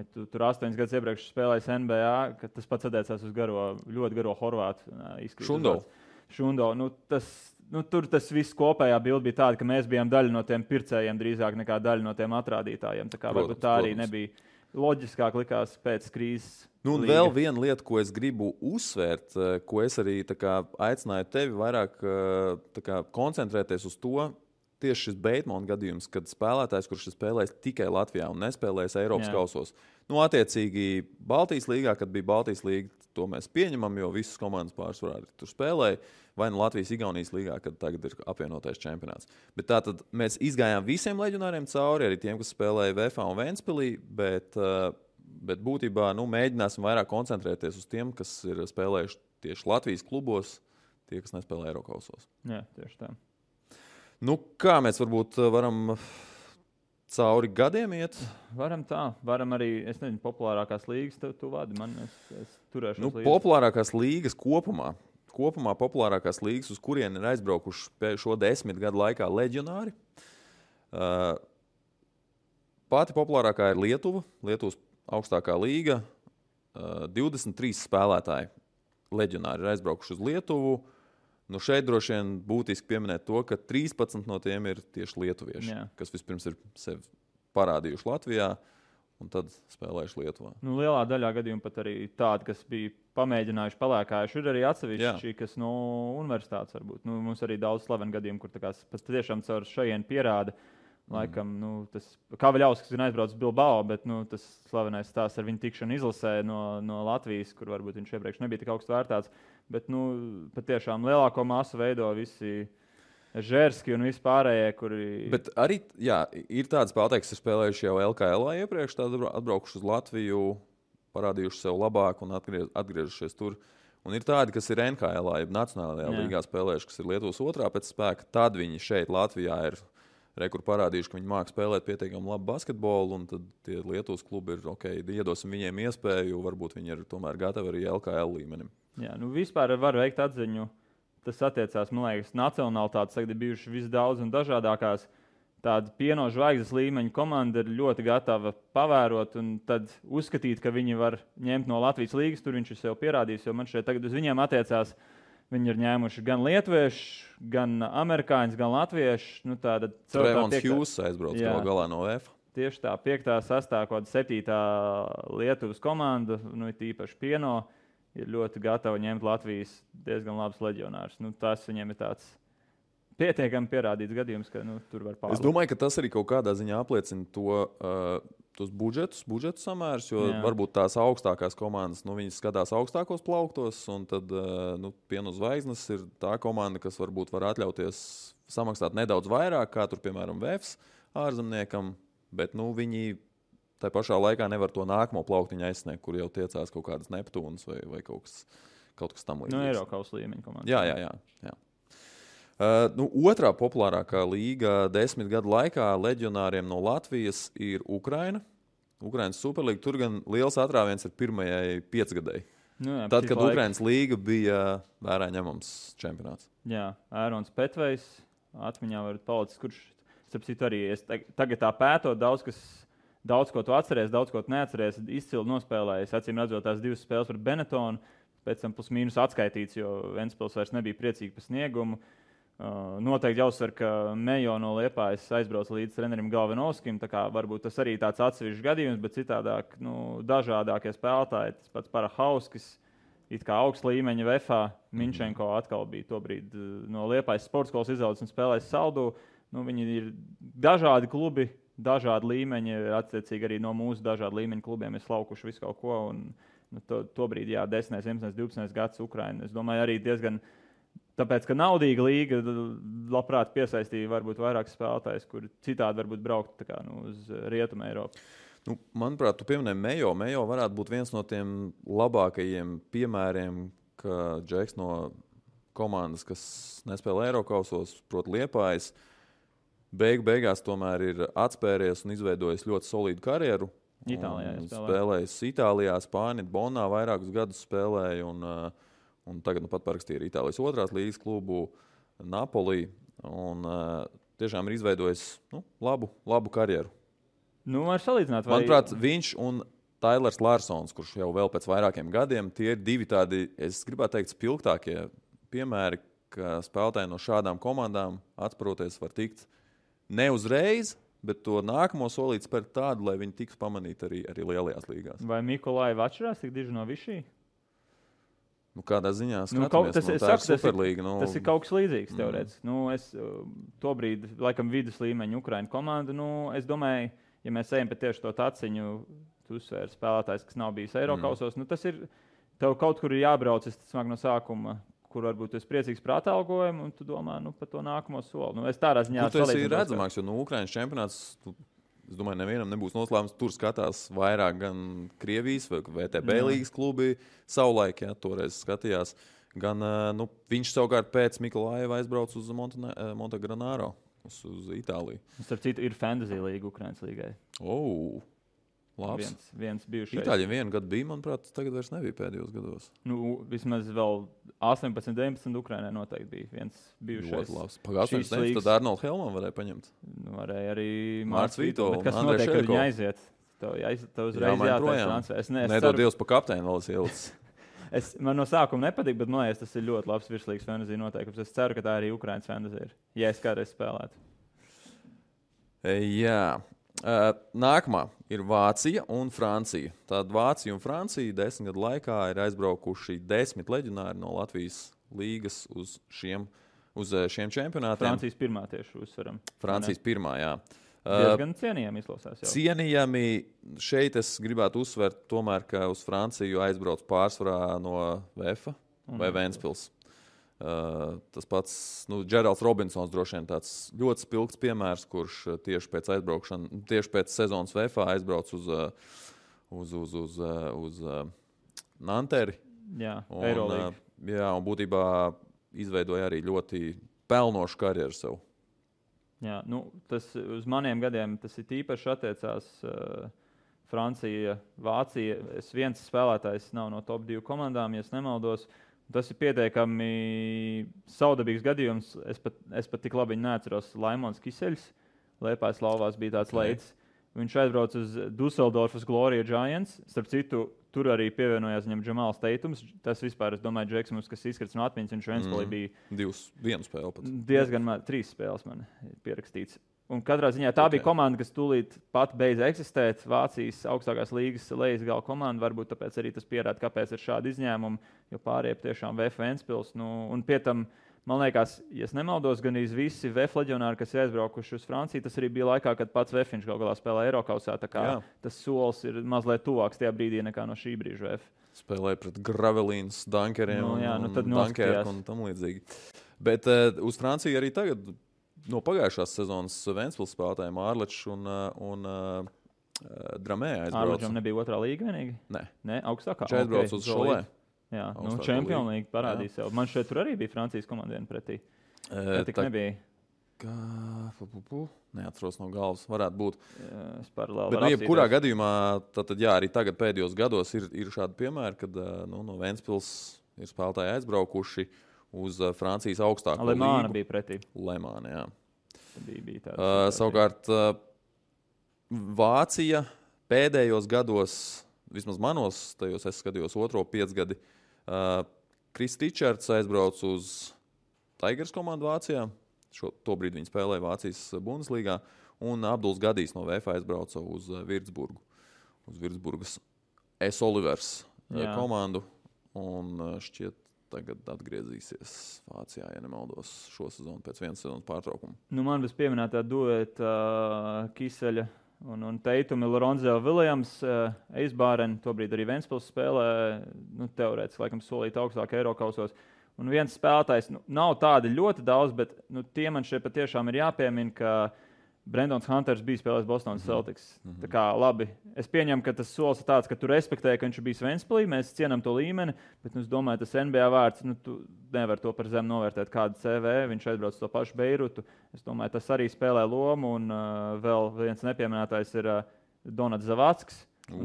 Ja tu tur 8 gadus iepriekš spēlējis NBA, kad tas pats attiecās uz ļoti garo horvātu izskatu. Šundo. Tur tas viss kopējā bilde bija tāda, ka mēs bijām daļa no tiem pircējiem drīzāk nekā daļa no tiem atrādītājiem. Tā kā varbūt tā arī nebija loģiskāk likās pēc krīzes. Vēl viena lieta, ko es gribu uzsvērt, ko es arī aicināju tevi vairāk koncentrēties uz to, tieši šis Batemana gadījums, kad spēlētājs, kurš ir spēlējis tikai Latvijā un nespēlējis Eiropas kausos. Attiecīgi Baltijas līgā, kad bija Baltijas līga, to mēs pieņemam, jo visas komandas pārsvarā tur spēlēja, vai no Latvijas-Igaunijas līgā, kad tagad ir apvienotais čempionāts. Bet tātad mēs izgājām visiem leģionāriem cauri, arī tiem, kas spēlēja VFA un Ventspilī, bet būtībā mēģināsim vairāk koncentrēties uz tiem, kas ir spēlējuši tieši Latvijas klubos, tie, kas nespēlē Eirokausos. Jā, tieši tā. Kā mēs varbūt varam cauri gadiem iet? Varam tā. Varam arī, es nezinu, populārākās līgas tu vadi. Es turēšu līdzi. Populārākās līgas kopumā. Kopumā populārākās līgas, uz kurien ir aizbraukuši šo 10 gadu laikā leģionāri. Pati populārākā ir Lietuva. Lietuvas augstākā līga. 23 spēlētāji leģionāri ir aizbraukuši uz Lietuvu. Nu šeit droši vien būtiski pieminēt to, ka 13 no tiem ir tieši lietuvieši, kas vispirms ir sevi parādījuši Latvijā un tad spēlējuši Lietuvā. Nu, lielā daļā gadījumu pat arī tādi, kas bija pamēģinājuši, palēkājuši, ir arī atsevišķi, kas no universitātes varbūt. Nu, mums arī daudz slavenu gadījumu, kur tiešām caur šajienu pierāda. Laikam, tas Kavaļauskas ir aizbraucis Bilbao, bet tas slavenais stāsts ar viņu tikšanu izlasē no Latvijas, kur varbūt viņš iepriekš nebija tik augstu vērtāts. Bet patiešām lielāko masu veido visi Žērski un vispārējie, kuri... Bet arī, ir tādi spēlētāji, kas ir spēlējuši jau LKL iepriekš, tad atbraukuši uz Latviju, parādījuši sev labāk un atgriežušies tur. Un ir tādi, kas ir NHL, jeb Nacionālajā līgā spēlējuši, kas ir Lietuvas otrā pēc spēka, tad viņi šeit Latvijā ir rekur parādījuši, ka viņi māks spēlēt pietiekami labu basketbolu, un tad tie Lietuvas klubi ir iedosim viņiem iespēju, varbūt viņi ir tomēr gatavi arī LKL līmenim. Jā, vispār var veikt atziņu. Tas attiecās, man liekas, nacionālitātes, tagad ir bijuši visdaudz un dažādākās. Tāda pieno zvaigznes līmeņa komanda ir ļoti gatava pavērot un tad uzskatīt, ka viņi var ņemt no Latvijas līgas, tur viņš ir sev pierādījis, jo man šeit tagad uz viņiem attiecās. Viņi ir ņēmuši gan lietuviešu, gan amerikāņus, gan latviešu. Trevons Hughes aizbrauc galā no VF. Tieši tā, 5., 6., 7. Lietuvas komanda, tīpaši pieno, ir ļoti gatava ņemt Latvijas diezgan labus leģionārus. Tas viņiem ir tāds pietiekami pierādīts gadījums, ka tur var pārlikt. Es domāju, ka tas arī kaut kādā ziņā apliecina tos budžetu samērus, jo varbūt tās augstākās komandas, viņas skatās augstākos plauktos, un tad Pienu Zvaigznes ir tā komanda, kas varbūt var atļauties samaksāt nedaudz vairāk, kā tur, piemēram, VFs ārzemniekam, bet viņi tā pašā laikā nevar to nākamo plauktiņu aizsniegt, kur jau tiecās kaut kādas Neptūnas vai kaut kas tam līdzīgs. Eiropas līmeņa komanda. Jā. Otrā populārākā līga 10 gadu laikā leģionāriem no Latvijas ir Ukraina. Ukrainas Superlīga. Tur gan liels atrāviens ir pirmajai 5 gadai. Tad, kad Ukrainas līga bija vērā ņemams čempionāts. Jā, Ērons Petvejs atmiņā var palicis, kurš, starp citu, arī tagad tā pētot daudz ko tu atceries, daudz ko tu neatceries, izcili nospēlējis, acīm redzot tās 2 spēles par Benetonu, pēc tam plus mīnus atskaitīts, jo Ventspils vairs nebija priecīgi par sniegumu. Noteikti jāuzsver, ka Mejo no Liepājas aizbrauc līdz trenerim Galvinovskim, tā kā varbūt tas arī tāds atsevišķs gadījums, bet citādāk, dažādākie spēlētāji, tas pats Parahauskis, it kā augsts līmeņa VFā, Minčenko atkal bija tobrīd no Liepājas sporta skolas izaudzis un spēlējis Saldu. Viņi ir dažādi klubi, dažādi līmeņi, attiecīgi arī no mūsu dažādu līmeņu klubiem ir slaukuši visu kaut ko, un tobrīd, 10, 11, 12 gads Ukraina, es domāju, arī diezgan, tāpēc, ka naudīga līga labprāt piesaistīja varbūt vairāk spēlētājs, kuri citādi varbūt braukt uz Rietumu Eiropu. Manuprāt, tu pieminēji Mejo. Mejo varētu būt viens no tiem labākajiem piemēriem, ka Džeks no komandas, kas nespēlē Eirokausos, proti Liepājas, beigās tomēr ir atspēries un izveidojis ļoti solīdu karjeru. Itālijā spēlējis Itālijā, Spānijā, Bonā vairākus gadus spēlēja un tagad pat parakstīja ar Itālijas 2. līgas klubu Napoli un tiešām ir izveidojis labu karjeru. Var salīdzināt, vai... Manuprāt, viņš un Tailers Larsons, kurš jau vēl pēc vairākiem gadiem, tie ir 2 tādi, es gribētu teikt, spilgtākie piemēri, ka spēlētāji no šādām komandām atspēroties var tikt ne uzreiz, bet to nākamo solīt spērt tādu, lai viņi tiks pamanīti arī lielajās līgās. Vai Mikolaiva atšķirās tik diži no Višī? Kādā ziņā skatāmies, tā ir Superlīga. Tas ir kaut kas līdzīgs teorētiski. Es tobrīd, laikam, vidus līmeņa Ukraina komanda, es domāju, ja mēs ejam pie tieši to taciņu, tu uzsvēri spēlētājs, kas nav bijis Eirokausos, tas ir, tev kaut kur ir jābrauc, es smāk no sākuma, kur varbūt tu esi priecīgs par atalgojumu, un tu domā par to nākamo soli. Es tādā ziņā tas ir redzamāks, jo Ukrainas čempionāts, es domāju, nevienam nebūs noslēpums. Tur skatās vairāk gan Krievijas vai VTB līgas klubi savulaik, toreiz skatījās. Gan viņš savukārt pēc Mikolaiva aizbrauc uz Montegranaro, uz Itāliju. Starp citu, ir fantasy līga Ukrainas līgai. Labs. Viens bijušais. Itāļiem vienu gadu bija, manuprāt, tagad vairs nebija pēdējos gados. Vismaz vēl 18, 19 Ukrainai noteikti bija viens bijušais. Ļoti labs. Pagājušajā gadā tad Arnolds Helmans varēja paņemt. Varēja arī Mārts Vīto. Bet kas notiek, kad viņi aiziet? Tev uzreiz jātaisa transfers. Nedod Dievs pa kapteini vēl ielicis. Man no sākuma nepatīk, bet man liekas, tas ir ļoti labs virslīgas fantasy noteikums. Es ceru, ka tā arī Ukrainas fantasy ir, ja es kādreiz spēlētu. Jā. Nākamā ir Vācija un Francija. Tad Vācija un Francija 10 gadu laikā ir aizbraukuši 10 leģionāri no Latvijas līgas uz šiem čempionātiem. Francijas pirmā tieši uzsveram. Francijas pirmā, jā. Diezgan cienījami izklausās jau. Cienījami šeit es gribētu uzsvert tomēr, ka uz Franciju aizbrauc pārsvarā no VF vai Ventspils. Tas pats Džeralds Robinsons droši vien tāds ļoti spilgts piemērs, kurš tieši pēc sezonas VF aizbrauc uz Nanteri. Jā, Eirolīga. Un būtībā izveidoja arī ļoti pelnošu karjeru sev. Jā, tas uz maniem gadiem tas ir īpaši attiecās Francija, Vācija. Viens spēlētājs nav no top 2 komandām, ja es nemaldos. Tas ir pietiekami saudabīgs gadījums. Es pat tik labi neatceros Laimons Kiseļs. Liepājas lauvās bija tāds leids. Viņš aizbrauca uz Dusseldorfas Gloria Giants. Starp citu, tur arī pievienojās viņam Džamāls Teitums. Tas vispār, es domāju, Džeksons, kas izkrits no atmiņas, viņš Ventspilī bija... Vienu spēli pat. Diezgan 3 spēles man ir pierakstīts. Un katrā ziņā tā bija komanda, kas tūlīt pat beidza eksistēt. Vācijas augstākās līgas lejas gala komanda. Varbūt tāpēc arī tas pierāda, kāpēc ir šādi izņēmumi. Jo pārējie tiešām VF Ventspils. Un pie tam, man liekas, ja es nemaldos, gan visi VF leģionāri, kas ir aizbraukuši uz Franciju, tas arī bija laikā, kad pats VF gal galā spēlēja Eirokausā. Tā kā tas solis ir mazliet tuvāks tajā brīdī nekā no šī brīža VF. Spēlēja pret Gravelīnas, Dunkeriem un Dunkerku un tam līdzīgi. Bet uz Franciju arī tagad no pagājušās sezonas Ventspils spēlētājiem Ārlečs un Dramē aizbrauca. Ārlečam nebija otrā līga vienīgi? Nē, augstākā. Viņš aizbrauca uz Šolē. Jā, Champions League parādīja sev. Man šeit tur arī bija Francijas komanda viena pretī. Tik nebija. Neatceros no galvas, varētu būt. Es paralēli varu apsīties. Kurā gadījumā, arī tagad pēdējos gados ir šādi piemēri, kad no Ventspils ir spēlētāji aizbraukuši uz Francijas augstāko līgu. Lemāna bija pretī. Lemāna, jā. Bija tāds, savukārt Vācija pēdējos gados, vismaz manos, tajos es skatījos otro 5 gadi, Kris Tičards aizbrauc uz Tigers komandu Vācijā. Tobrīd viņi spēlēja Vācijas Bundeslīgā. Un Abduls Gadijs no VF aizbrauca uz Virtsburgu. Uz Virtsburgas S. Olivers komandu. Un šķiet, tagad atgriezīsies Vācijā, ja nemaldos, šo sezonu pēc vienas sezonas pārtraukuma. Man bez pieminētā dueta Kiseļa un Teitumi, Lorenzo Viljams, Eisbāren, tobrīd arī Ventspils spēlē, teorētiski laikam solīt augstāk Eirokausos. Un viens spēlētājs, nav tādi ļoti daudz, bet tie man šeit patiešām ir jāpiemina, ka Brendons Hunters bija spēlējis Bostonas Celtics. Tā kā labi, es pieņemu, ka tas solis ir tāds, ka tu respektē, ka viņš bija Ventspilī, mēs cienam to līmeni, bet es domāju, tas NBA vārds, tu nevar to par zemu novērtēt kādu CV, viņš aizbrauc to pašu Beirutu. Es domāju, tas arī spēlē lomu, un vēl viens nepieminētājs ir Donats Zavacks.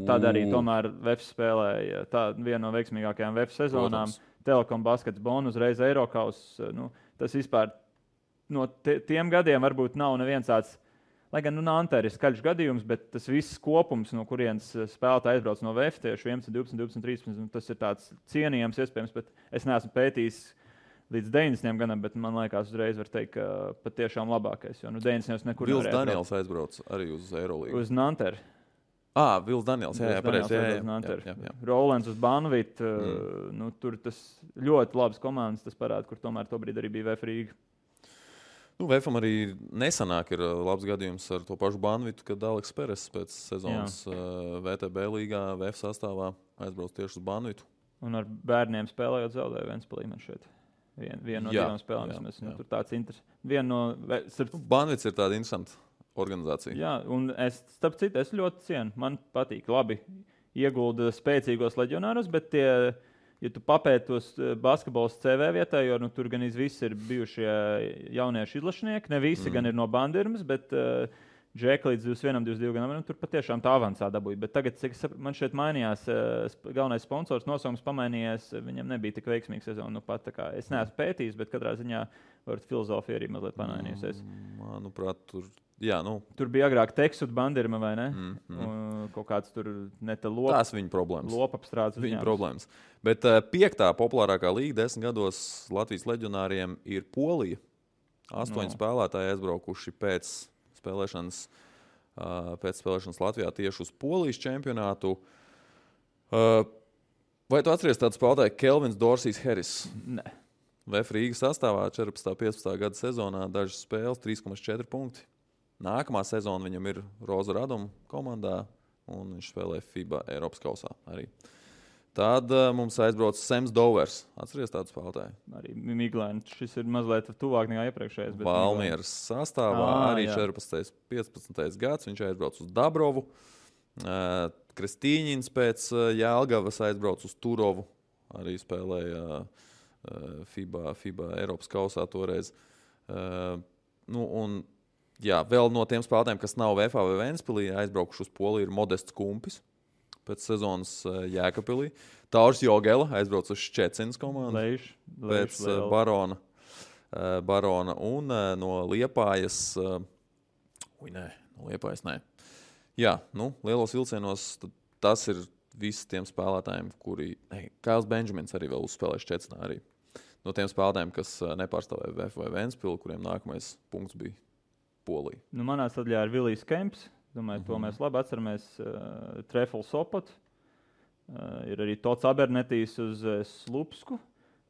Tad arī tomēr VF spēlēja viena no veiksmīgākajām VF sezonām. Telekom basketbolu uzreiz Eirokaus. Tas vispār no tiem gadiem varbūt nav neviens tāds, lai gan Nanteri ir skaļš gadījums, bet tas viss kopums, no kurienes spēlētāji aizbrauc no VF tieši 11, 12, 12, 13, tas ir tāds cienījams iespējams, bet es neesmu pētījis līdz 90 gadam, bet man liekas uzreiz var teikt, ka patiešām labākais, jo 90 nekur nevarēja. Vils Daniels aizbrauc arī uz Eirolīgu. Uz Nanteri. Vils Daniels, jā, pareizi. Rolands uz Banvitu, tur tas ļoti labs komandas, tas parāda, kur tomēr tobrīd arī bija VF Rīga. VFam arī nesanāk ir labs gadījums ar to pašu Banvitu, kad Aleks Peres pēc sezonas VTB līgā VF sastāvā aizbrauc tieši uz Banvitu. Un ar bērniem spēlējot zaudēja Ventspilī man šeit. Vienu no divām spēlēm. Tur tāds interesants. Banvits ir tāda interesanta organizācija. Jā, un starp citu, es ļoti cienu. Man patīk labi iegulda spēcīgos leģionārus, bet tie ja tu papēti tos basketbols CV vietā, jo tur gan visi ir bijušie jaunieši izlašnieki, ne visi gan ir no Bandirmas, bet Džeka līdz 21, 22 gadam, tur patiešām tā avansā dabūja. Bet tagad, cik man šeit mainījās, galvenais sponsors nosaukums pamainījies, viņam nebija tik veiksmīga sezona. Nu, pat, kā, es neesmu pētījis, bet katrā ziņā filozofija arī mazliet pamainījusies. Manuprāt, tur bija agrāk Teksut Bandirma, vai ne? Kaut kāds tur lopa. Tās viņa problēmas. Lopapstrādes viņa problēmas. Bet 5. populārākā līga 10 gados Latvijas leģionāriem ir Polija. 8 spēlētāji aizbraukuši pēc spēlēšanas Latvijā tieši uz Polijas čempionātu. Vai tu atceries tādu spēlētāju Kelvins Dorsijs Harris? Nē. VF Rīgas sastāvā 14.15. gada sezonā dažas spēles 3,4 punkti. Nākamā sezona viņam ir Roza Raduma komandā, un viņš spēlē FIBA Eiropas kausā arī. Tad mums aizbrauc Sams Dovers. Atceries tādu spēlētāju? Arī Miglēns. Šis ir mazliet tuvāk nekā iepriekšējais. Valmieras sastāvā arī 14. 15. gads. Viņš aizbrauc uz Dabrovu. Kristīņins pēc Jelgavas aizbrauc uz Turovu. Arī spēlēja FIBA Eiropas kausā toreiz. Vēl no tiem spēlētājiem, kas nav VFA vai Ventspilī, aizbraukuši uz Poliju, ir Modests Kumpis. Pēc sezonas Jēkabpilī. Tāurs Jogela aizbrauc uz Ščecinas komandu. Pēc Barona un no Liepājas. No Liepājas nē. Jā, lielos vilcienos tas ir visi tiem spēlētājiem, kuri... Kails Benjamins arī vēl uzspēlēja Ščecinā arī. No tiem spēlētājiem, kas nepārstāvēja VF vai Ventspili, kuriem nākamais punkts bija Polija. Manā sadaļā ir Vilijs Kemps. Domāju, to mēs labi atceramies. Trefl Sopot. Ir arī Tots Abernetijs uz Slupsku.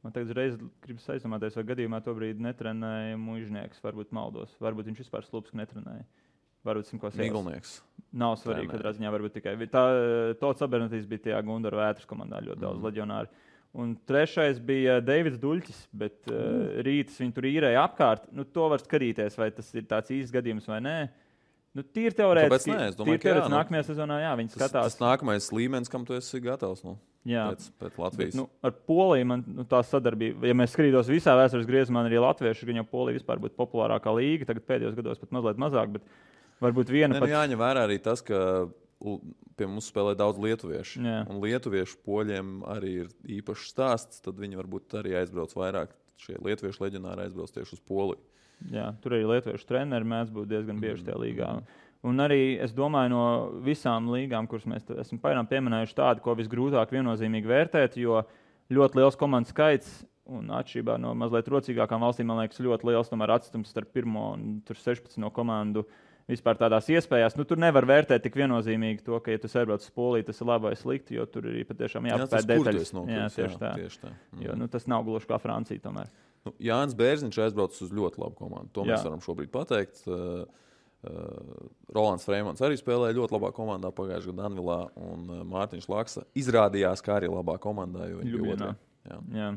Man tagad reiz gribas aizdomāties, vai gadījumā to brīdi netrenēja Muižnieks. Varbūt maldos. Varbūt viņš vispār Slupsku netrenēja. Varbūt Miglnieks. Nav svarīgi, katrā ziņā varbūt tikai. Tots Abernetijs bija tajā Gundara Vētras komandā ļoti daudz leģionāri. Un trešais bija Deivids Duļķis, bet Rītas viņu tur īrēja apkārt. To var skatīties, vai tas ir tāds īsts gadījums vai nē. Tīri teorētiski, nākamajā sezonā, viņi skatās. Tas nākamais līmenis, kam tu esi gatavs pēc Latvijas. Ar Poliju man tā sadarbība, ja mēs skatītos visā vēstures griezumā, arī latvieši, gan jau Polija vispār būtu populārākā līga, tagad pēdējos gados pat mazliet mazāk, bet varbūt viena pat... Jāņem vērā arī tas, ka pie mums spēlē daudz lietuviešu. Un lietuviešu poļiem arī ir īpašs stāsts, tad viņi varbūt arī aizbrauc vairāk. Šie lietuviešu leģionāri aizbrauc tieši uz Poliju. Jā, tur arī lietuviešu treneri mēdz būt diezgan bieži tajā līgā. Un arī, es domāju, no visām līgām, kuras mēs esam pieminējuši tādu, ko visgrūtāk viennozīmīgi vērtēt, jo ļoti liels komandu skaits un atšķirībā no mazliet rocīgākām valstīm, man liekas, ļoti liels tomēr atstums starp 1 un 16 komandu vispār tādās iespējās. Tur nevar vērtēt tik viennozīmīgi to, ka, ja tu aizbrauc uz Poliju, tas ir labi vai slikti, jo tur ir patiešām jāpapēt detaļas. Tieši tā. Jo tas nav gluži kā Francija tomēr. Jānis Bērziņš aizbrauc uz ļoti labu komandu. To mēs varam šobrīd pateikt. Rolands Freimans arī spēlēja ļoti labā komandā pagājušajā gadā Danvilā, un Mārtiņš Laksa izrādījās, kā arī labā komandā, jo viņi bija otrā. Jā.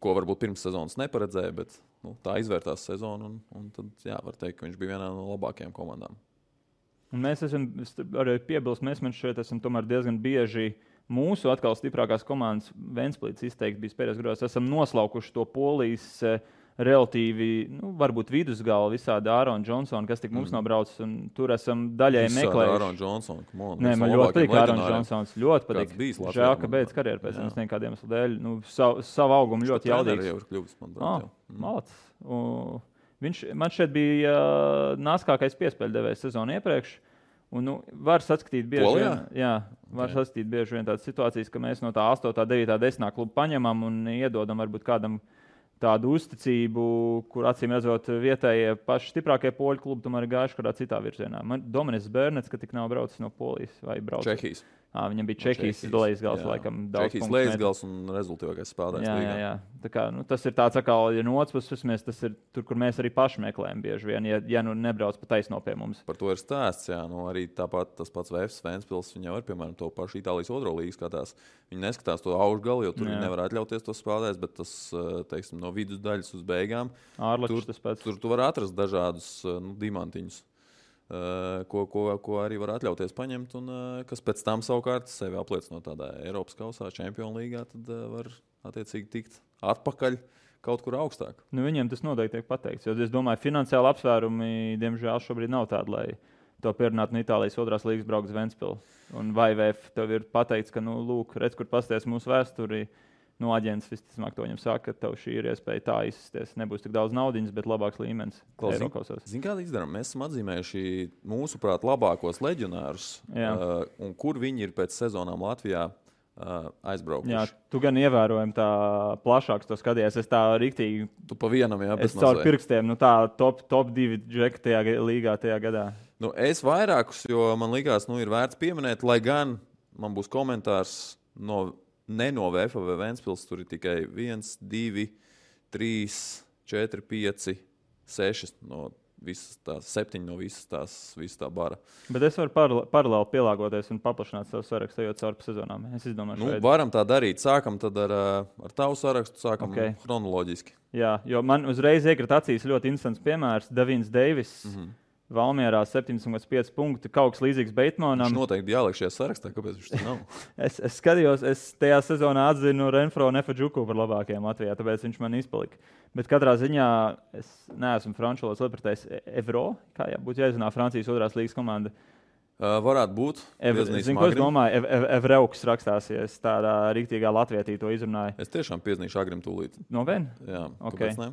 Ko varbūt pirms sezonas neparedzēja, bet tā izvērtās sezonu, un tad var teikt, ka viņš bija vienā no labākajām komandām. Un mēs esam arī piebilst, mēs šeit esam tomēr diezgan bieži mūsu atkal stiprākās komandas Ventspilīts izteikti bijis pēdējos gados. Esam noslaukuši to Polijas relatīvi, varbūt vidusgalu visādi Ārona Džonsona, kas tik mums nav braucis, un tur esam daļēji meklējuši. Ārona Džonsona, Nē, man ļoti patīk Ārona Džonsons, ļoti patīk. Žēl, ka beidz karjeru pēc tam nekādiem iemeslu dēļ. Savu augumu ļoti jaudīgs. Malacis. Man šeit bija nāskākais piespēļdevējs sezonu iepriekš. Un, var saskatīt bieži vien tādas situācijas, ka mēs no tā 8., 9., 10. klubu paņemam un iedodam varbūt kādam tādu uzticību, kur acīm redzot vietējie paši stiprākie poļu klubi tomēr ir gājuši kādā citā virzienā. Dominis Bērnets, ka tik nav braucis no Polijas vai braucis. Čehijas. Viņam bija Čehijas lejasgals, laikam daudz Čehijas lejasgals un rezultātīvākais spēlētājs līgā. Jā. Tā kā, tas ir tāds atkal, ja no otras puses, tas ir tur, kur mēs arī paši meklējam bieži vien, ja nebrauc pa taisno pie mums. Par to ir stāsts, arī tāpat tas pats VF Ventspils, viņi jau ir, piemēram, to pašu Itālijas otro līgu skatās. Viņi neskatās to augšgalu, jo tur viņi nevar atļauties tos spēlētājs, bet tas, teiksim, no vidusdaļas uz beigām, Ārlačs tas pats. Tur tu var atrast dažādus diamantiņus. ko arī var atļauties paņemt, un kas pēc tam savukārt sevi apliecinot tādā Eiropas kausā, Čempionu līgā, tad var attiecīgi tikt atpakaļ kaut kur augstāk. Nu, viņiem tas noteikti tiek pateikts, jo es domāju, finansiāli apsvērumi, diemžēl, šobrīd nav tādi, lai to pierunātu no Itālijas 2. līgas braukt uz Ventspili. Un vai VF tev ir pateikts, ka, lūk, redz, kur pasties mūsu vēsturi, aģents visticamāk to viņam saka, ka tev šī ir iespēja tā izsties. Nebūs tik daudz naudiņas, bet labāks līmenis. Zini, kāda izdarām? Mēs esam atzīmējuši mūsuprāt labākos leģionārus, un kur viņi ir pēc sezonām Latvijā aizbraukuši. Jā, tu gan ievērojami tā plašāks to skatījies. Es tā riktīgi... Tu pa vienam, jā, es caur pirkstiem, tā top 2 džeki tajā līgā tajā gadā. Es vairākus, jo man likās, ir vērts pieminēt, lai gan man būs komentārs ne no VF vai Ventspils, tur ir tikai 1, 2, 3, 4, 5, 6 no visas tās, 7 no visas tā bara. Bet es varu paralēli pielāgoties un paplašināt savu sarakstu, ejot caur sezonām. Es izdomāju, varam tā darīt. Sākam tad ar tavu sarakstu, sākam chronoloģiski. Jā, jo man uzreiz iekrita acīs ļoti interesants piemērs. Devins Deivis. Valmierā 7,5 punkti, kaut kas līdzīgs Beitmanam. Viņš noteikti jāliek šajā sarakstā, kāpēc viņš tā nav? es skatījos, es tajā sezonā atzinu Renfro un Efedžuku par labākajiem Latvijā, tāpēc viņš man izpalika. Bet katrā ziņā es neesmu franču valodas lietpratējs Evro, kā būtu jāizrunā Francijas 2. līgas komanda. Varētu būt. Zinu, ko es domāju, Evreuks rakstās, ja es tādā riktīgā latvietī to izrunāju. Es tiešām piezīmēšu Agrim tūlīt. Nopietni? Jā, okay. Kāpēc ne?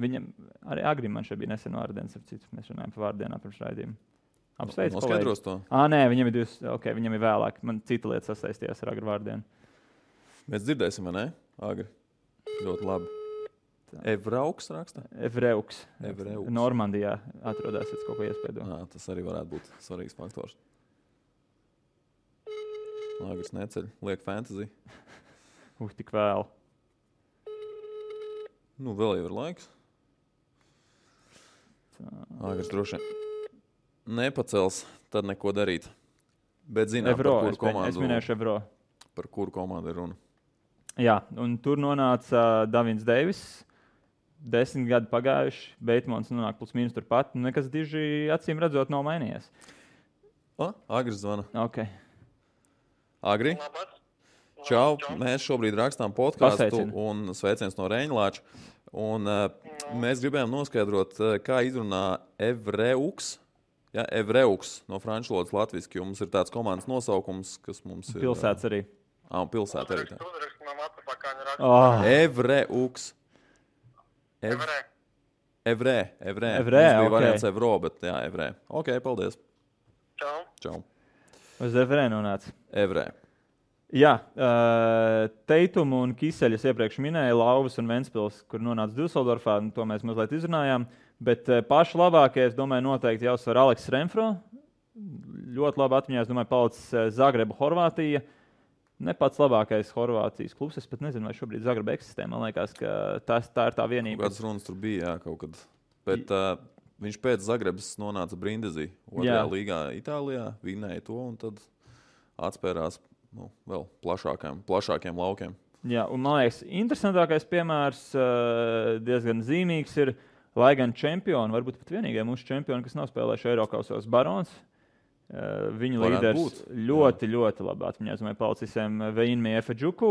Viņam arī Agrim man šeit bija nesen vārdiens, mēs runājam par vārdienā pirms raidījuma. Apsveic, noskaidros to? Nē, viņam ir viņam ir vēlāk. Man cita lieta sasaistījās ar Agri vārdienu. Mēs dzirdēsim, vai ne? Agri. Ļoti labi. Evrauks rakstā? Evreuks. Normandijā atrodas, ja kaut ko iespēdo. Tas arī varētu būt svarīgs faktors. Agris neceļ, liek fantasy. Tik vēl. Vēl jau ir laiks. Agris droši nepacels, tad neko darīt. Bet zinām, Evro, par kuru komandu. Es minēšu Evro. Par kuru komandu ir runa. Jā, un tur nonāca Davins Deivis. 10 gadi pagājuši, Beitmans nonāk plus mīnus turpat. Nekas diži acīm redzot nav mainījies. Agris zvana. Ok. Agri? Čau, mēs šobrīd rakstām podcastu un sveiciens no Reņlāča. Un mēs gribējām noskaidrot, kā izrunā Evreuks. Ja, Evreuks no franču valodas latviski, jo mums ir tāds komandas nosaukums, kas mums ir... Pilsētas arī. Un pilsēta arī tā. Oh. Evreuks. Evrē. Mums bija variants Evro, bet jā, Evrē. Ok, paldies. Čau. Uz Evrē nonāca? Evrē. Jā, Teitumu un Kiseļus iepriekš minēja, Lauvas un Ventspils, kur nonāca Düsseldorfā, to mēs mazliet izrunājām, bet paši labākie, es domāju, noteikti jāuzsver Aleks Renfro. Ļoti labi atmiņā, es domāju, palicis Zagreba, Horvātija. Ne pats labākais Horvātijas klubs, es pat nezinu, vai šobrīd Zagreba eksistē, man liekas, ka tā ir tā vienība. Kādas runas tur bija, jā, kaut kad. Bet viņš pēc Zagrebas nonāca Brindisi, 2. līgā Itālijā, vinēja to un tad atspērās vēl plašākiem laukiem. Jā, un man liekas, interesantākais piemērs, diezgan zīmīgs ir, lai gan čempioni, varbūt pat vienīgie mūsu čempioni, kas nav spēlējuši Eirokausos, Barons. Viņa līderis ļoti labi atmiņā. Es domāju, palicisiem Veinmi Efedžuku,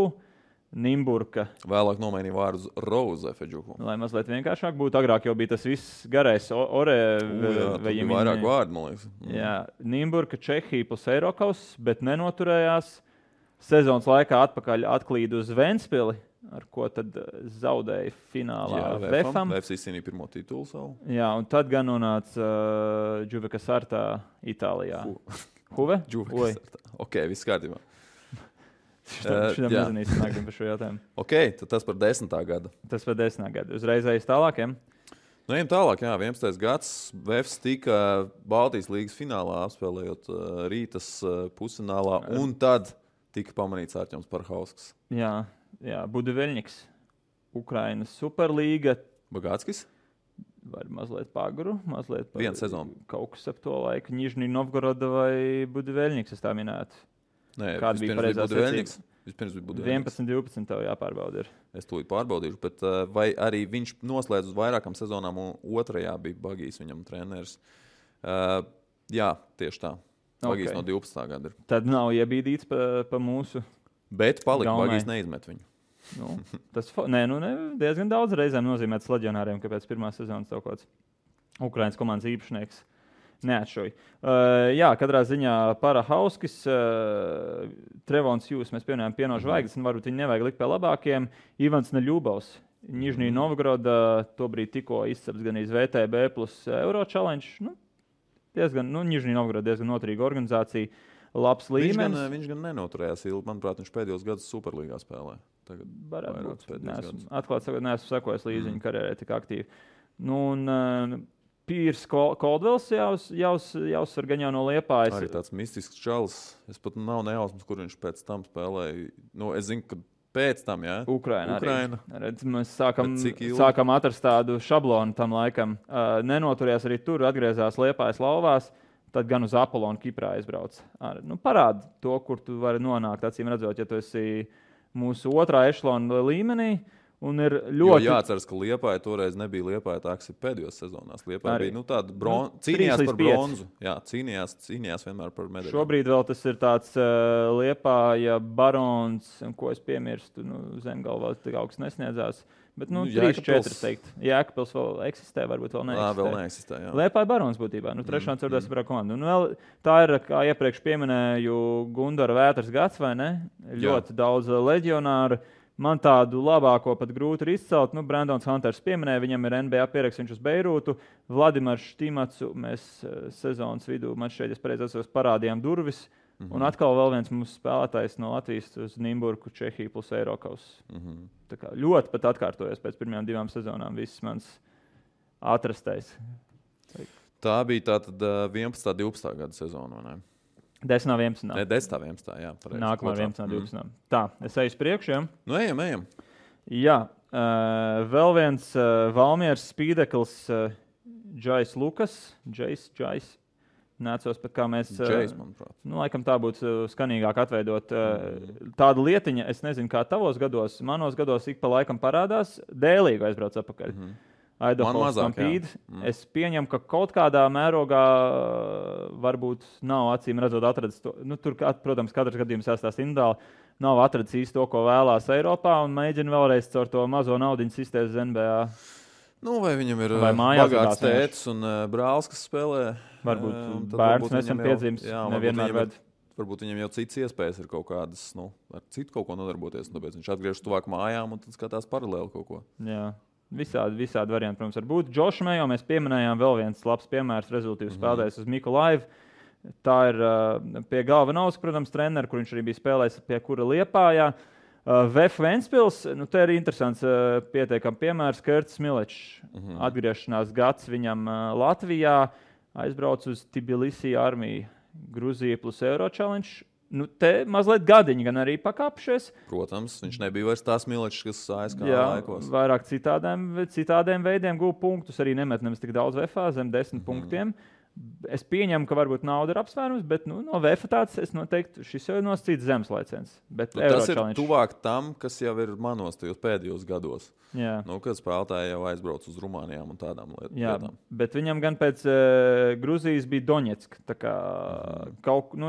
Nimburka. Vēlāk nomainīja vārdu uz Rose Efedžuku. Lai mazliet vienkāršāk būtu, agrāk jau bija tas viss garais Ore. Bija vairāk vārdu, man liekas. Jā, Nimburka, Čehija plus Eirokaus, bet nenoturējās. Sezonas laikā atpakaļ atklīd uz Ventspili, ar ko tad zaudēja finālā VFam. VFs izcīnīja pirmo titulu savu. Jā, un tad gan nonāca Juve Caserta Itālijā. Huve? Juve Caserta. Ok, viss kārtībā. Šitam nezinīsim nākam par šo jautājumu. Ok, tad tas par 10. gadu. Tas par 10. gadu. Uzreiz aiz tālākiem? Ejam tālāk, jā, 11. gads. VFs tika Baltijas līgas finālā apspēlējot Rītas pusfinālā, un tad tika pamanīts Arķems Parhausks. Jā, Budiveļņiks, Ukrainas Superlīga. Bagātskis? Vai mazliet pagru, mazliet vienu sezonu. Kaut kas ap to laiku. Nižnij Novgoroda vai Budiveļņiks, es tā minētu. Nē, kāda bija pareizā secība? Vispirms bija Budiveļņiks. 11-12 tev jāpārbauda ir. Es tūlīt pārbaudīšu, bet vai arī viņš noslēdz uz vairākām sezonām, un otrajā bija Bagijs viņam treneris. Jā, tieši tā. Bagīs no 12. gada ir. Tad nav iebīdīts pa mūsu. Bet palika, Bagīs neizmet viņu. Tas diezgan daudz reizēm nozīmēts leģionāriem, ka pēc pirmās sezonas kaut kāds Ukrainas komandas īpašnieks neatšoja. Katrā ziņā Parahauskis, Trevons Jūs, mēs pieminējām pieno žvaigznes, un varbūt viņi nevajag likt pie labākiem. Ivans Neļubovs, Nižnī Novgoroda, tobrīd tikko izceps gan iz VTB plus Euro Challenge. Nižnī Novgoroda diezgan noturīga organizācija, labs līmenis. Viņš gan nenoturējās ilgi, manuprāt, viņš pēdējos gadus Superlīgā spēlē. Atklāt sakot, neesmu sekojis līdzi viņa karjerai tik aktīvi. Pīrs Koldvels jāuzsver gan jau no Liepājas. Arī tāds mistisks čalis. Es pat nav nejausmas, kur viņš pēc tam spēlēja. Es zinu, ka pēc tam, jā. Ukraina. Redz, mēs sākam atrast tādu šablonu tam laikam. Nenoturējās arī tur, atgriezās Liepājas lauvās, tad gan uz Apollonu Kiprā aizbrauc. Parāda to, kur tu vari nonākt, acīm redzot, ja tu esi mūsu otrā ešlona līmenī. Un ir ļoti... Jo jāatceras, ka Liepāja toreiz nebija Liepāja tā, kas ir pēdējos sezonās. Liepāja bija tāda cīnījās par bronzu. Jā, cīnījās vienmēr par medaļu. Šobrīd vēl tas ir tāds Liepāja barons, ko es piemirstu, Zemgalvā tik augsts nesniedzās. Bet 3-4 teikt. Jēkabpils vēl eksistē, varbūt vēl neeksistē. Vēl neeksistē, jā. Liepāja barons būtībā. Trešā un ceturtā saprā komanda. Un vēl tā ir, kā iepriekš pieminēju, Gundara Vētras gads, vai ne? Ļoti daudz leģionāru. Man tādu labāko pat grūti ir izcelt. Brandons Hunters pieminēja, viņam ir NBA pieraksts, viņš uz Beirūtu. Vladimirs Štimacu mēs sezonas vidū, man šeit, es pareizi atceros, parādījām durvis. Un atkal vēl viens mūsu spēlētājs no Latvijas uz Nimburku, Čehiju plus Eirokaus. Tā kā ļoti pat atkārtojas pēc pirmajām 2 sezonām viss mans atrastais. Tā bija tātad 11. 12. gada sezona, vai ne? 10. 11. Ne, 10. 11. Jā, pareizi. Nākamā 11. 12. Tā, es eju uz priekšu, ja? Ejam. Jā, vēl viens Valmieras spīdeklis, Džais Lukas. Džais. Nācos pat kā mēs... Džais, manuprāt. Laikam tā būtu skanīgāk atveidot. Tāda lietiņa, es nezinu, kā tavos gados, manos gados ik pa laikam parādās, dēlīgi aizbrauc atpakaļ. Man mazāk, Es pieņemu, ka kaut kādā mērogā varbūt nav acīm redzot atradis to. Tur, protams, katrs gadījums jāstāsta individuāli. Nav atradis īsti to, ko vēlās Eiropā un mēģina vēlreiz caur to mazo naudiņu sistēmas NBA. Vai viņam ir bagāts tētis un brālis, kas spēlē? Varbūt bērns nesen piedzīmes. Varbūt viņam jau citas iespējas ir kaut kādas, ar citu kaut ko nodarboties. Tāpēc viņš atgriežas tuvāk mājām un tad skatās paralēli kaut ko. Jā. Visādi varianti, protams, var būt. Džošu Mejo mēs pieminējām, vēl viens labs piemērs, rezultīvs spēlētājs uz Mikolaivu. Tā ir pie galva Nauska, protams, treneris, kur viņš arī bija spēlējis, pie kura Liepājā. VF Ventspils, te ir interesants pietiekam piemērs, Kerts Milečs. Atgriešanās gads viņam Latvijā, aizbrauc uz Tbilisi armiju, Gruzija plus Euro Challenge. Te mazliet gadiņi gan arī pakāpšies. Protams, viņš nebija vairs tās Milečs, kas ASK laikos. Vairāk citādiem veidiem guva punktus, arī nemet nemaz tik daudz VF, zem 10 punktiem. Es pieņemu, ka varbūt nauda ir apsvērums, bet no VF tāds es noteikti, šis jau ir nosacīts zemes laiciens. Tas ir tuvāk tam, kas jau ir manos tajos pēdējos gados. Jā. Kad spēlētāji jau aizbrauc uz Rumānijām un tādām lietām. Jā, bet viņam gan pēc Gruzijas bija Doņetska. Tā kā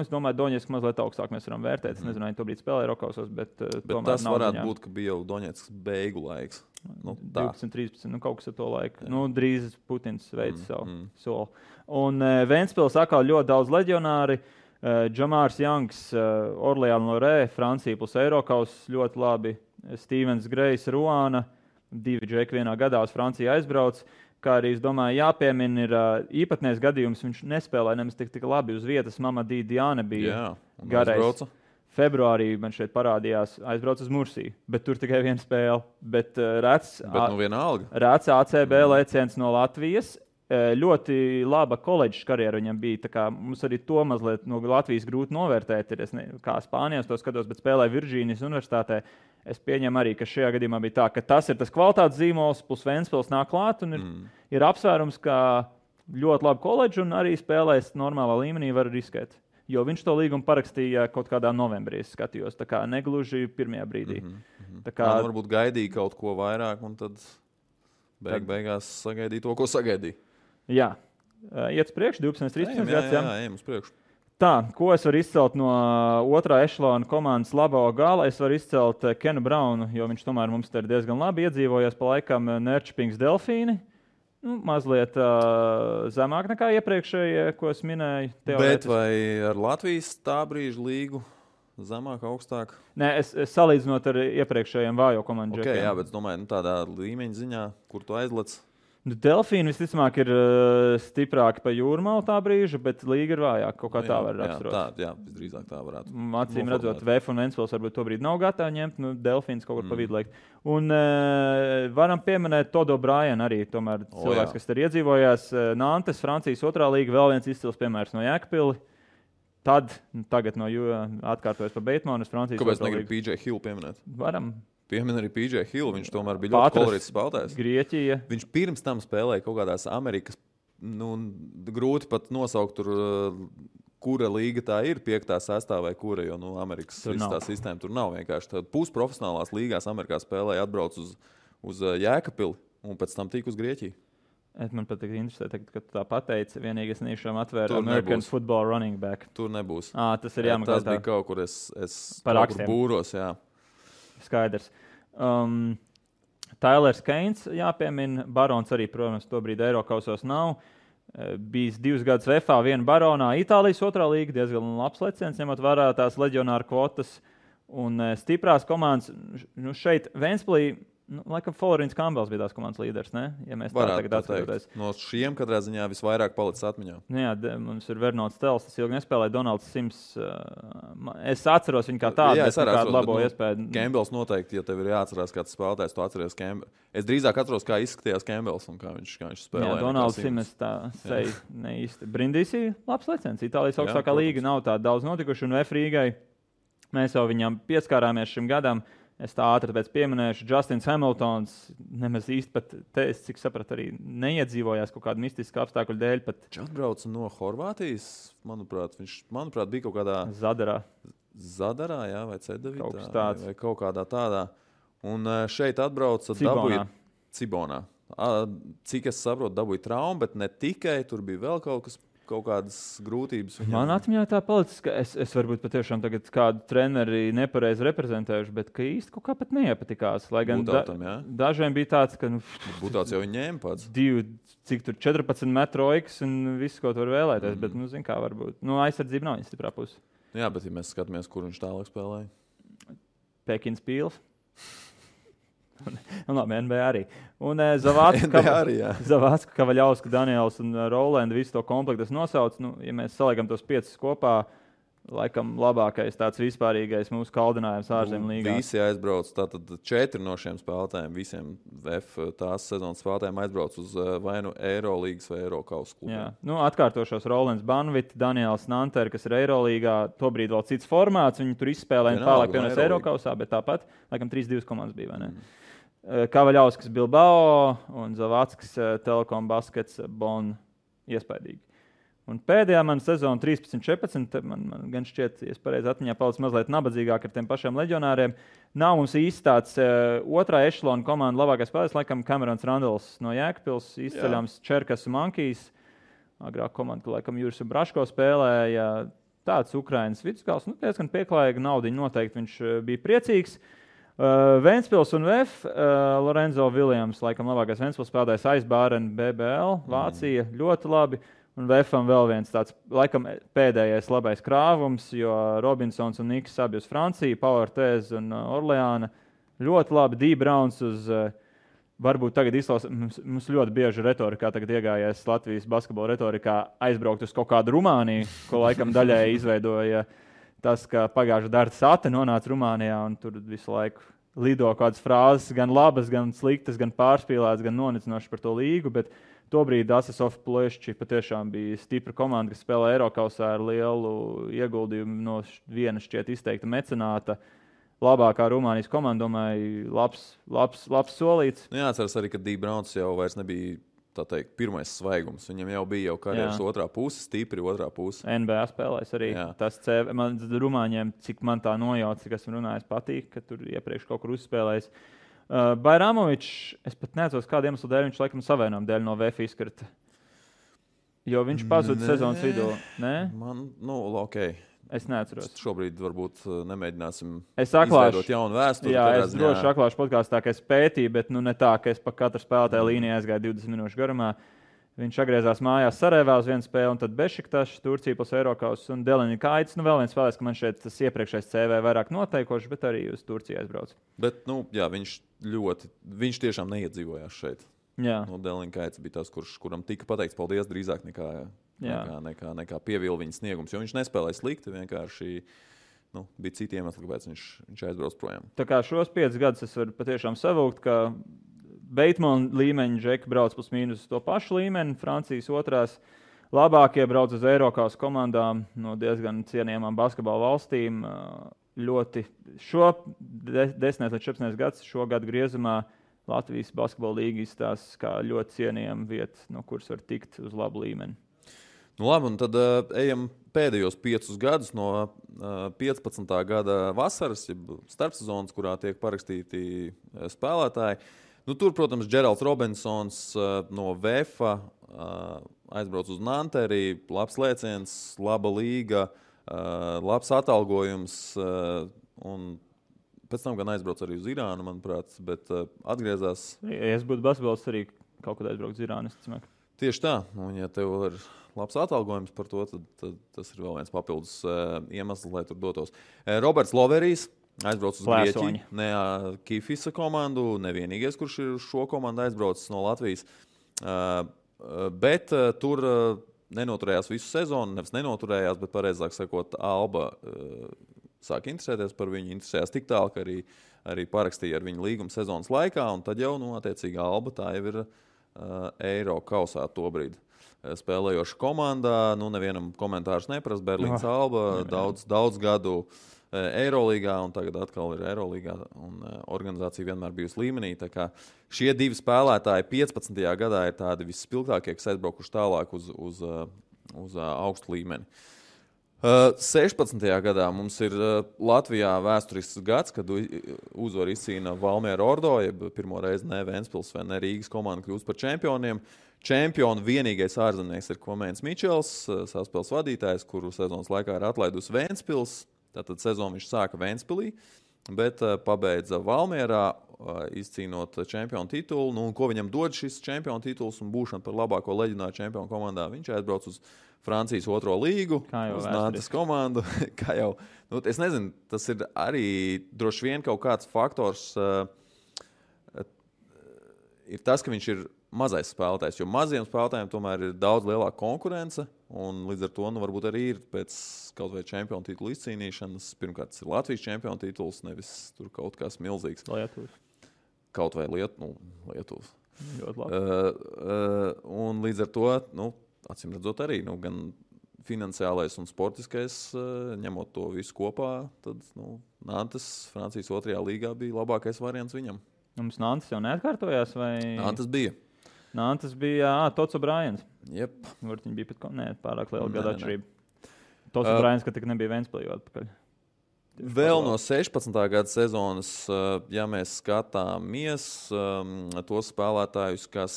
es domāju, Doņetska mazliet augstāk mēs varam vērtēt. Es nezinu, vai tobrīd spēlēja Rokausos, bet tas varētu būt, ka bija jau Doņetskas beigu laiks. 12, 13, kaut kas ar to laiku. Drīz Putins veids savu soli. Un Ventspils atkal ļoti daudz leģionāri. Džamārs Jangs, Orleāna Lorē, Francija plus Eirokaus ļoti labi. Stevens Grejs, Ruāna, 2 džeki vienā gadā uz Franciju aizbrauc. Kā arī, es domāju, jāpiemina ir īpatnējs gadījums. Viņš nespēlēja nemaz tik labi uz vietas. Mamadī Diāne bija garais. Februārī man šeit parādījās, aizbrauc uz Mursiju, bet tur tikai viena spēle. Bet rēts ACB lēciens no Latvijas. Ļoti laba koledžas karjera viņam bija. Tā kā mums arī to mazliet no Latvijas grūti novērtēt. Kā Spānijā to skatos, bet spēlēja Virģīnijas universitātē. Es pieņemu arī, ka šajā gadījumā bija tā, ka tas ir tas kvalitātes zīmols, plus Ventspils nāk klāt un ir apsvērums, ka ļoti laba koledža un arī spēlēs normālā līmenī var riskēt. Jo viņš to līgumu parakstīja kaut kādā novembrī, es skatījos, tā kā negluži pirmajā brīdī. Tā kā varbūt gaidīja kaut ko vairāk un tad beigās sagaidīja to, ko sagaidīja. Jā, Iet uz priekšu, 12-13 gads. Jā, ejam uz priekšu. Tā, ko es varu izcelt no otrā ešalona komandas labā gala? Es varu izcelt Kenu Braunu, jo viņš tomēr mums te ir diezgan labi iedzīvojies pa laikam Nērčpings Delfīni. Mazliet zemāk nekā iepriekšējie, ko es minēju. Bet vai ar Latvijas tā brīža līgu zemāk, augstāk? Nē, es salīdzinot ar iepriekšējiem vājo komandu. Okay, jā, bet es domāju, tādā līmeņa ziņā, kur tu aizlec. Delfīni visticamāk ir stiprāki pa jūrmalu tā brīža, bet līga ir vājāka. Kaut kā tā var raksturot. Jā, visdrīzāk tā varētu. Acīm redzot, VF un Ventspils varbūt to brīdi nav gatavi ņemt, Delfīns kaut kur pa vidu liekt. Un varam pieminēt Todo Bryan arī, tomēr cilvēks, kas ir iedzīvojās. Nantes, Francijas otrā līga, vēl viens izcils piemērs no Jēkabpili. Tagad no atkārtojas pa Beitmanu uz Francijas otrā līga. Kāpēc negribu PJ Hill pieminēt? Varam. Piemin arī PJ Hill, viņš tomēr bija ļoti kolorīts spēlētājs. Grieķija. Viņš pirms tam spēlēja kaut kādās Amerikas, grūti pat nosaukt tur, kura līga tā ir, 5., 6. vai kura, jo Amerikas tā sistēma tur nav vienkārši. Pusprofesionālās līgās Amerikā spēlēja, atbrauc uz Jēkabpili un pēc tam tika uz Grieķiju. Man pat interesē, ka tu tā pateici, vienīgi es niešām atvēru American Football running back. Tur nebūs. Tas ir jāmaksā. Tas bija kaut kur, es kaut kur būros, jā. Skaidrs. Tailers Keins jāpiemina. Barons arī, protams, tobrīd Eirokausos nav. Bijis 2 gadus VFA, 1 Baronā. Itālijas otrā līga diezgan labs leciens, ņemot vērā tās leģionāru kvotas un stiprās komandas. Šeit Ventspilī, laikam Florins Campbells bija tās komandas līderis, ne? Ja mēs tā tagad atskatoties. No šiem katrā ziņā visvairāk palicis atmiņā. Jā, mums ir Vernots Tels, tas ilgi nespēlēja, Donalds Sims. Es atceros viņu kā tādu, bet kādu labo iespēju. Campbells noteikti, ja tev ir jāatcerās kāds spēlētājs, tu atceries Campbells. Es drīzāk atceros, kā izskatījās Campbells un kā viņš spēlēja. Jā, Donalds Sims tā seja neīsti. Brindisi labs leciens. Itālijas augstākā līga nav tā daudz notikuši un VF Rīgai. Mēs jau viņam pieskārāmies šim gadam. Es tā ātri pēc pieminēšu, Justins Hamiltons nemaz īsti pat, es cik sapratu, arī neiedzīvojās kaut kādu mistisku apstākļu dēļ. Viņš atbrauca no Horvātijas, manuprāt, bija kaut kādā... Zadarā, jā, vai Cedevitā, vai kaut kādā tādā. Un šeit atbrauca Cibonā. Cik es saprotu, dabūja traumu, bet ne tikai, tur bija vēl kaut kādas grūtības. Man atmiņā tā palicis, ka es varbūt patiešām tagad kādu treneri nepareizi reprezentējuši, bet ka īsti kaut kā pat neiepatikās. Lai gan dažiem bija tāds, ka... Būtāts jau viņi ņēma pats. 14 metru oikas un viss, ko tu var vēlēties, bet, zin kā varbūt. Aizsardzība nav viņa stiprā puse. Jā, bet ja mēs skatāmies, kur viņš tālāk spēlēja. Pekins Pīls. Labi, NBA arī. Un Zavācka, Kavaļausku, Daniels un Rolanda visu to komplektu nosauc. Ja mēs saliekam tos 5 kopā, laikam labākais tāds vispārīgais mūsu kaldinājums ārzemju līgā. Visi aizbrauc, tātad 4 no šiem spēlētājiem, visiem VF tās sezonas spēlētājiem aizbrauc uz vai nu Eirolīgas vai Eirokausa klubu. Jā, atkārtošos Rolands Banvit, Daniels Nanter, kas ir Eirolīgā, tobrīd vēl cits formāts, viņi tur izspēlēja un tālāk pievienojas Eirokausā, bet tāpat, laikam 3-2 komandas bija, vai ne? Kavaļauskas Bilbao un Zavāckas Telekom Baskets Bonn iespaidīgi. Un pēdējā mana sezona 13-14, man gan šķiet, ja es pareizi atmiņā palicis mazliet nabadzīgāk ar tiem pašiem leģionāriem. Nav mums īsti tāds otrā ešalona komanda labākais spēlētājs, laikam Camerons Randalls no Jēkabpils, izceļams Čerkas un Mankijs. Agrāk komanda, laikam Juris Braško spēlēja, tāds Ukrainas vidusgals, diezgan pieklājīga naudiņa noteikti, viņš bija priecīgs. Ventspils un VF, Lorenzo Williams, laikam labākais Ventspils spēlētājs Aizbāren, BBL, Vācija, ļoti labi. Un VFam vēl viens tāds, laikam pēdējais labais krāvums, jo Robinsons un Niks abi uz Franciju, Pauertēz un Orleāna. Ļoti labi, D. Browns uz, varbūt tagad mums ļoti bieži retorikā tagad iegājies Latvijas basketbola retorikā aizbraukt uz kaut kādu Rumāniju, ko laikam daļēji izveidoja tas, ka pagājušā Darta Sate nonāca Rumānijā un tur visu laiku lido kādas frāzes, gan labas, gan sliktas, gan pārspīlētas, gan nonicinošas par to līgu, bet tobrīd Asesov Plešči patiešām bija stipra komanda, kas spēlē Eirokausā ar lielu ieguldījumu no viena šķiet izteikta mecenāta. Labākā Rumānijas komanda, domāju, labs solīts. Jāatceras arī, ka D. Browns jau vairs nebija tā teikt, pirmais svaigums. Viņam jau bija karjeras otrā puse, stipri otrā puse. NBA spēlēs arī. Jā. Tas Rumāņiem, cik man tā nojauc, cik esmu runājis, patīk, ka tur iepriekš kaut kur uzspēlējis. Bajramovičs, es pat neatceros, kādu iemeslu dēļ viņš laikam savainojuma dēļ no VF izkrita. Jo viņš pazuda sezonas vidū. Nē? Man, ok. Es neatceros. Šobrīd varbūt nemēģināsim izveidot jaunu vēsturi. Jā, es droši atklāšu podkāstā, ka es pētīju, bet ne tā, ka es pa katru spēlētāju līniju aizgāju 20 minūšu garumā. Viņš atgriezās mājās Sarajevā uz vienu spēli, un tad Bešiktašs, Turcija plus Eirokaus un Deliņikaits. Vēl viens spēlēs, ka man šeit tas iepriekšējais CV vairāk noteikošs, bet arī uz Turciju aizbrauc. Bet, viņš tiešām neiedzīvojās šeit. Deliņikaits bija tas, kuram tika pateikts paldies drīzāk nekā pievīla viņa sniegums, jo viņš nespēlēja slikti, vienkārši bija citi iemesli, kāpēc viņš aizbrauc projām. Tā kā šos 5 gadus es varu patiešām savūkt, ka Beitmana līmeņa džeki brauc plus mīnus to pašu līmeni, Francijas otrās labākie brauc uz Eiropas komandām no diezgan cienījamām basketbola valstīm. Ļoti šo 10 līdz 14 gadus šo gadu griezumā Latvijas basketbola līga izstāsta kā ļoti cienījama vieta, no kuras var tikt uz labu līmeni. Labi, un tad ejam pēdējos 5 gadus no 15. gada vasaras, starpsezonas, kurā tiek parakstīti spēlētāji. Tur, protams, Džeralds Robinsons no VEFA aizbrauc uz Nanteri, labs lēciens, laba līga, labs atalgojums, un pēc tam gan aizbrauc arī uz Irānu, manuprāt, bet atgriezās. Ja es būtu basketbols, arī kaut kad aizbrauc uz Irānu, es domāju. Tieši tā, un ja tev ir labs atalgojums par to, tad tas ir vēl viens papildus iemesls, lai tur dotos. Roberts Loverijs aizbrauc uz Grieķiju, ne Kifisa komandu, nevienīgais, kurš ir šo komandu aizbraucis no Latvijas, bet tur nenoturējās visu sezonu, nevis nenoturējās, bet pareizāk sakot, Alba sāk interesēties par viņu, interesējās tik tālu, ka arī parakstīja ar viņu līgumu sezonas laikā, un tad jau, attiecīgi, Alba tā jau ir Eiro kausā tobrīd spēlējoša komandā, nevienam komentārus neprast, Berlīnas Alba, daudz gadu Eirolīgā, un tagad atkal ir Eirolīgā, un organizācija vienmēr bijusi līmenī. Tā kā šie 2 spēlētāji 15. gadā ir tādi visspilgtākie, kas aizbraukuši tālāk uz augstu līmeni. 16. gadā mums ir Latvijā vēsturisks gads, kad uzvaru izcīna Valmiera Ordo, jeb pirmo reizi ne Ventspils vai ne Rīgas komanda kļūst par čempioniem. Čempionu vienīgais ārzemnieks ir Kvamēns Mičels, saspēles vadītājs, kuru sezonas laikā ir atlaidus Ventspils. Tātad sezonu viņš sāka Ventspilī, bet pabeidza Valmierā, izcīnot čempionu titulu. Un ko viņam dod šis čempionu tituls un būšana par labāko leģendāru čempionu komandā? Viņš aizbrauc uz Francijas 2. līgu, uz Nantes komandu. Es nezinu, tas ir arī droši vien kaut kāds faktors. Ir tas, ka viņš ir mazais spēlētājs, jo maziem spēlētājiem tomēr ir daudz lielāka konkurence, un līdz ar to varbūt arī ir pēc kaut vai čempionu titulu izcīnīšanas. Pirmkārt, tas ir Latvijas čempionu tituls, nevis tur kaut kas milzīgs. Lietuvas. Kaut vai Lietuvas. Ļoti labi. Un līdz ar to, acīm redzot arī, gan finansiālais un sportiskais, ņemot to visu kopā, tad Nantes Francijas 2. līgā bija labākais variants viņam. Mums Nantes jau neatkārtojās? Vai... Nantes bija Tots O'Briens. Jep. Viņi bija pārāk liela gada atšķirība. Tots O'Briens, ka tik nebija Ventspilī atpakaļ. Vēl no 16. gada sezonas, ja mēs skatāmies tos spēlētājus, kas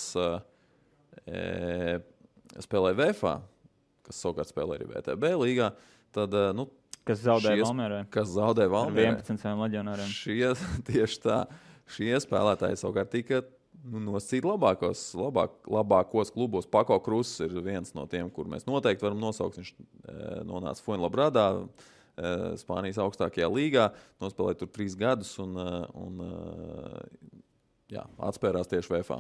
spēlē VFA, kas savukārt spēlē arī VTB līgā, tad, kas zaudēja Valmierai. Ar 11 leģionāriem. Tieši tā. Šie spēlētāji savukārt tika nosacīti labākos klubos. Pako Kruss ir viens no tiem, kur mēs noteikti varam nosaukt. Viņš nonāca Fuenlabradā, Spānijas augstākajā līgā, nospēlēja tur 3 gadus un atspērās tieši VFA.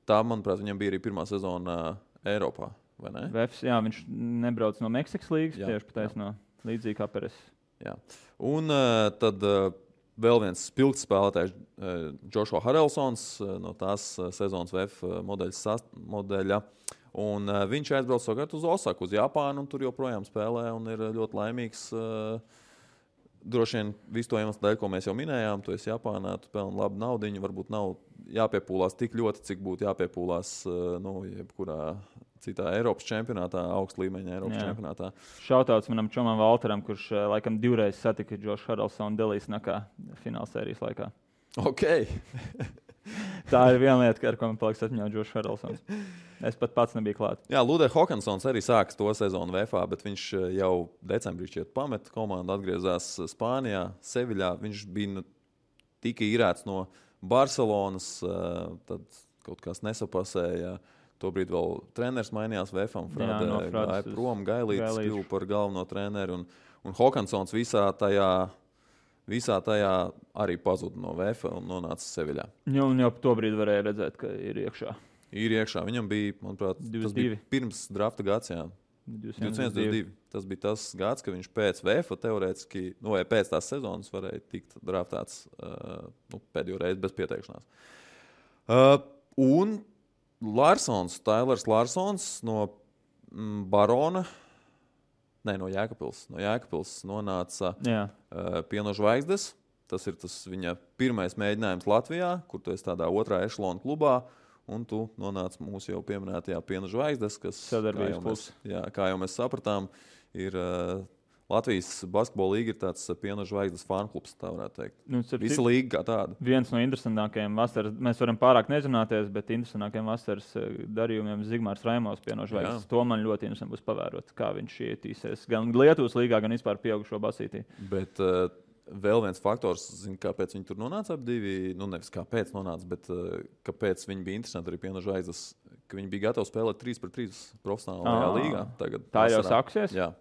Tā, manuprāt, viņam bija arī pirmā sezona Eiropā, vai ne? VFs, viņš nebrauc no Meksikas līgas, tieši pataisno līdzīgi kā Peres. Jā. Un tad vēl viens spilgts spēlētājs, Joshua Harrelsons, no tās sezonas VF modeļa. Un viņš aizbrauc savukārt uz Osaku, uz Japānu, un tur joprojām spēlē un ir ļoti laimīgs. Droši vien visu to iemeslu dēļ, ko mēs jau minējām, tu esi Japānā, tu pelni labu naudiņu, varbūt nav jāpiepūlās tik ļoti, cik būtu jāpiepūlās jebkurā citā Eiropas čempionātā, augsta līmeņa Eiropas čempionātā. Šautauts manam čomam Valteram, kurš laikam 2 reizes satika Josh Harrelsonu Delijas nakā finālsērijas laikā. Ok. Tā ir viena lieta, ar ko man paliks atmiņā Džošs Harrelsons. Es pat pats nebiju klāt. Jā, Ludē Hokansons arī sāks to sezonu VFA, bet viņš jau decembrī šķiet pameta komandu, atgriezās Spānijā, Seviļā. Viņš bija tika īrēts no Barcelonas, tad kaut kas nesapasēja. Tobrīd vēl treneris mainījās VFA, gāja prom, Gailītis kļuva par galveno treneru. Un Hokansons visā tajā arī pazuda no VFA un nonāca Seviļā. Un jau tobrīd varēja redzēt, ka ir iekšā. Ir iekšā. Viņam bija, manuprāt, 22. Tas bija pirms drafta gads, jā. 21-22. Tas bija tas gads, ka viņš pēc VFA teorētiski, vai pēc tās sezonas varēja tikt draftēts pēdējo reizi bez pieteikšanās. Un Tailers Larsons no Barona, no Jēkabpils. No Jēkabpils nonāca Pieno Zvaigznes. Tas ir viņa pirmais mēģinājums Latvijā, kur tu esi tādā otrā ešalona klubā. Un tu nonāc mūsu jau pieminētajā Piena Zvaigznes, kas, kā jau mēs sapratām, ir Latvijas basketbola līga ir tāds Piena Zvaigznes fanklubs, tā varētu teikt. Visa līga kā tāda. Viens no interesantākajiem vasaras, mēs varam pārāk nezināties, bet interesantākajiem vasaras darījumiem Zigmārs Raimos Piena Zvaigznes. To man ļoti interesanti būs pavērot, kā viņš ietīsies gan Lietuvas līgā, gan vispār pieaugušo basītī. Bet vēl viens faktors, kāpēc viņi tur nonāca ap divi, nevis kāpēc nonāca, bet kāpēc viņi bija interesanti arī Piena Zvaigznes, ka viņi bija gatavi spēlēt 3-3 profesionālajā līgā. Tagad tā jau sāksies? Jā.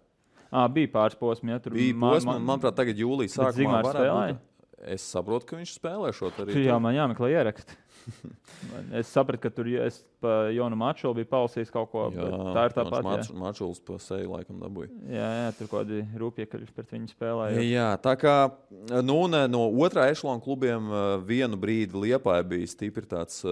Bija pāris posmi, ja tur bija posmi, manuprāt, tagad jūlijas sākumā varētu būt. Es saprotu, ka viņš spēlē šo arī. Jā, man jāmeklē ieraksti. Es sapratu, ka tur pa Jonu Mačulu bija palasījis kaut ko, bet tā ir tāpat. Mačuls pa seju laikam dabūja. Jā, tur kaut kādi rūpjekaļi pret viņu spēlēja. Jā, tā kā no otrā ešalona klubiem vienu brīdi Liepāja bija stipri tāds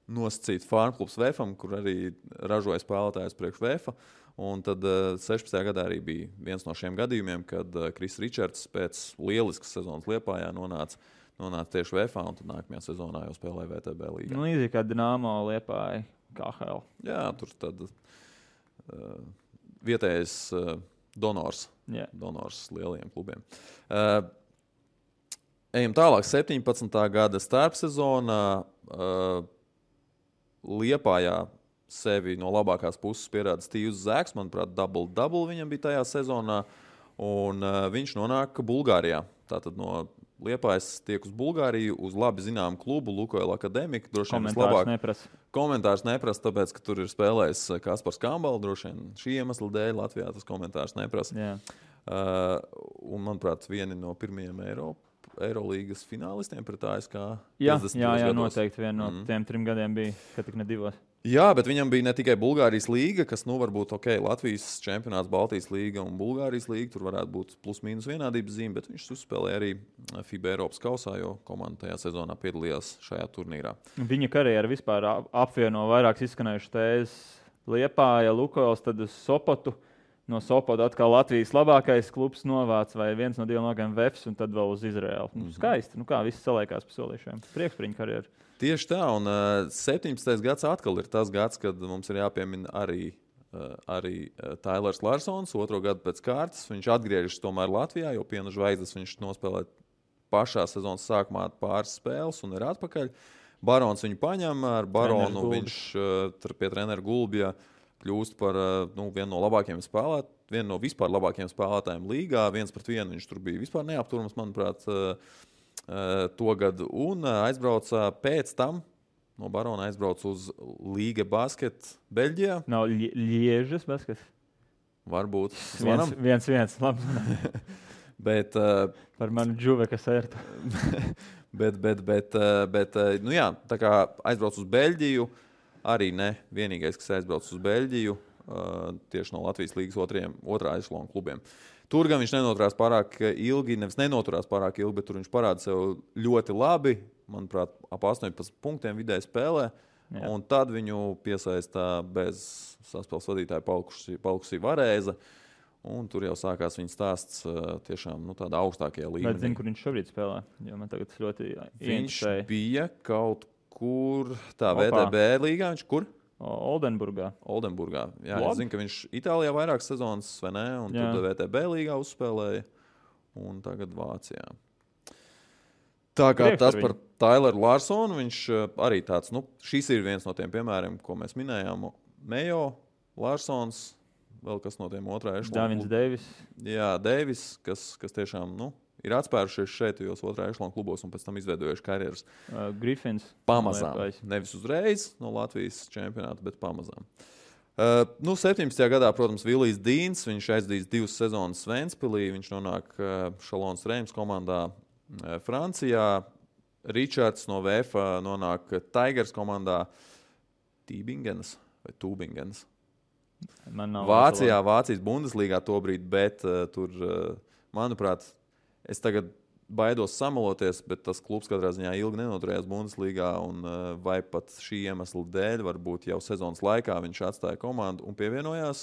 nosacīts farmklubs VFam, kur arī ražoja spēlētājus priekš VFa. Un tad 16. gadā arī bija viens no šiem gadījumiem, kad Kris Ričards pēc lieliskas sezonas Liepājā nonāca tieši VFA, un tad nākamajā sezonā jau spēlēja VTB līgā. Līdzīgi kā Dinamo Liepāja KHL. Jā, tur tad vietējais donors lielajiem klubiem. Ejam tālāk. 17. gada starpsezonā Liepājā sevi no labākās puses pierāda Stīvs Zēks. Manuprāt, double viņam bija tajā sezonā. Un viņš nonāk Bulgārijā. Tātad no Liepājas tiek uz Bulgāriju, uz labi zināmu klubu, Lukoil Akademika. Komentārs neprasa, tāpēc, ka tur ir spēlējis Kaspars Kambala. Droši vien šī iemesla dēļ Latvijā tas komentārs neprasa. Un, manuprāt, vieni no pirmajiem Eirolīgas finālistiem pret ASK. Jā, noteikti vien no tiem 3 gadiem bija, ka tik ne 2. Jā, bet viņam bija ne tikai Bulgārijas līga, kas varbūt Latvijas čempionāts, Baltijas līga un Bulgārijas līga. Tur varētu būt plus-mínus vienādības zīme, bet viņš uzspēlēja arī FIBA Eiropas kausā, jo komanda tajā sezonā piedalījās šajā turnīrā. Viņa karjera vispār apvieno vairākas izskanējušas tēzes. Liepāja, Lukoils, tad uz Sopotu. No Sopota atkal Latvijas labākais klubs novāc vai viens no 2 nogiem VFs un tad vēl uz Izraēlu. Skaisti, kā viss saliekās pa solīšiem. Prieks par viņu karjeru. Tieši tā, un 17. gads atkal ir tas gads, kad mums ir jāpiemina arī Tailers Larsons, 2. gadu pēc kārtas. Viņš atgriežas tomēr Latvijā, jo Piena Zvaigznes viņš nospēlē pašā sezonas sākumā pāris spēles un ir atpakaļ. Barons viņu paņem, ar Baronu viņš pie treneru Gulbja kļūst par vienu no labākajiem spēlētājiem, vienu no vispār labākajiem spēlētājiem līgā. 1-1 viņš tur bija vispār neapturams, manuprāt, to gadu. Un aizbrauca pēc tam, no Barona aizbrauca uz Līga basket Beļģijā. Nav Liežas basket? Varbūt. 1-1, labi. Bet par manu Džuveka sērtu. bet jā, tā kā aizbrauc uz Beļģiju, arī ne vienīgais, kas aizbrauc uz Beļģiju, tieši no Latvijas līgas otrā ešalona klubiem. Tur gan viņš nenoturās pārāk ilgi, bet tur viņš parāda sev ļoti labi. Manuprāt, ap 18 punktiem vidēji spēlē. Jā. Un tad viņu piesaistā bez saspēles vadītāja palkusī Varēza. Un tur jau sākās viņa stāsts tiešām tādā augstākajā līmenī. Bet zinu, kur viņš šobrīd spēlē? Jo man tagad ļoti viņš bija kaut kur VTB līgā. Viņš kur? Oldenburgā. Jā, es zinu, ka viņš Itālijā vairākas sezonas, vai ne? Un tad VTB līgā uzspēlēja. Un tagad Vācijā. Tā kā tas par Tyleru Larsonu, viņš arī tāds, šis ir viens no tiem piemēriem, ko mēs minējām. Mejo, Larsons, vēl kas no tiem otrā ešlona. Davins Deivis. Jā, Deivis, kas tiešām, ir atspērušies šeit, jos otrā ešlona klubos un pēc tam izveidojuši karjeras. Griffins. Pamazām. Nevis uzreiz no Latvijas čempionāta, bet pamazām. 17. gadā, protams, Vilijs Dīns, viņš aizdīs 2 sezonas Ventspilī, viņš nonāk Šalons Reims komandā Francijā. Ričards no VFA nonāk Tigers komandā Tībingenas vai Tūbingenas. Vācijas Bundeslīgā tobrīd, bet tur, manuprāt, es tagad baidos samaloties, bet tas klubs katrā ziņā ilgi nenoturējās Bundeslīgā, un vai pat šī iemesla dēļ, varbūt jau sezonas laikā viņš atstāja komandu un pievienojās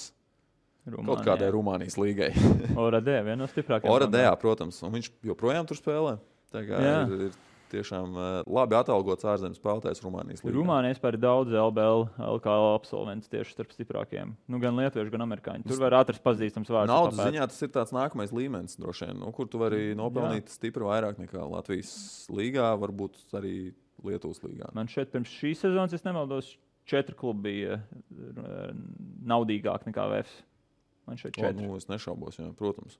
kaut kādai Rumānijas līgai. Oradē, viena no stiprākajām. Oradē, protams, un viņš joprojām tur spēlē. Ir tiešām labi atalgots ārzemes spēlētājs Rumānijas līgā. Rumānijā vispār ir daudz LBL, LKL absolventus tieši starp stiprākajiem. Gan lietuvieši, gan amerikāņi. Tur var atrast pazīstams vārds. Naudas ziņā tas ir tāds nākamais līmenis, droši vien, kur tu vari nopelnīt stipri vairāk nekā Latvijas līgā, varbūt arī Lietuvas līgā. Man šeit pirms šīs sezonas, es nemaldos, 4 klubi bija naudīgāk nekā VFS. Man šeit 4. Es nešaubos, jā, protams.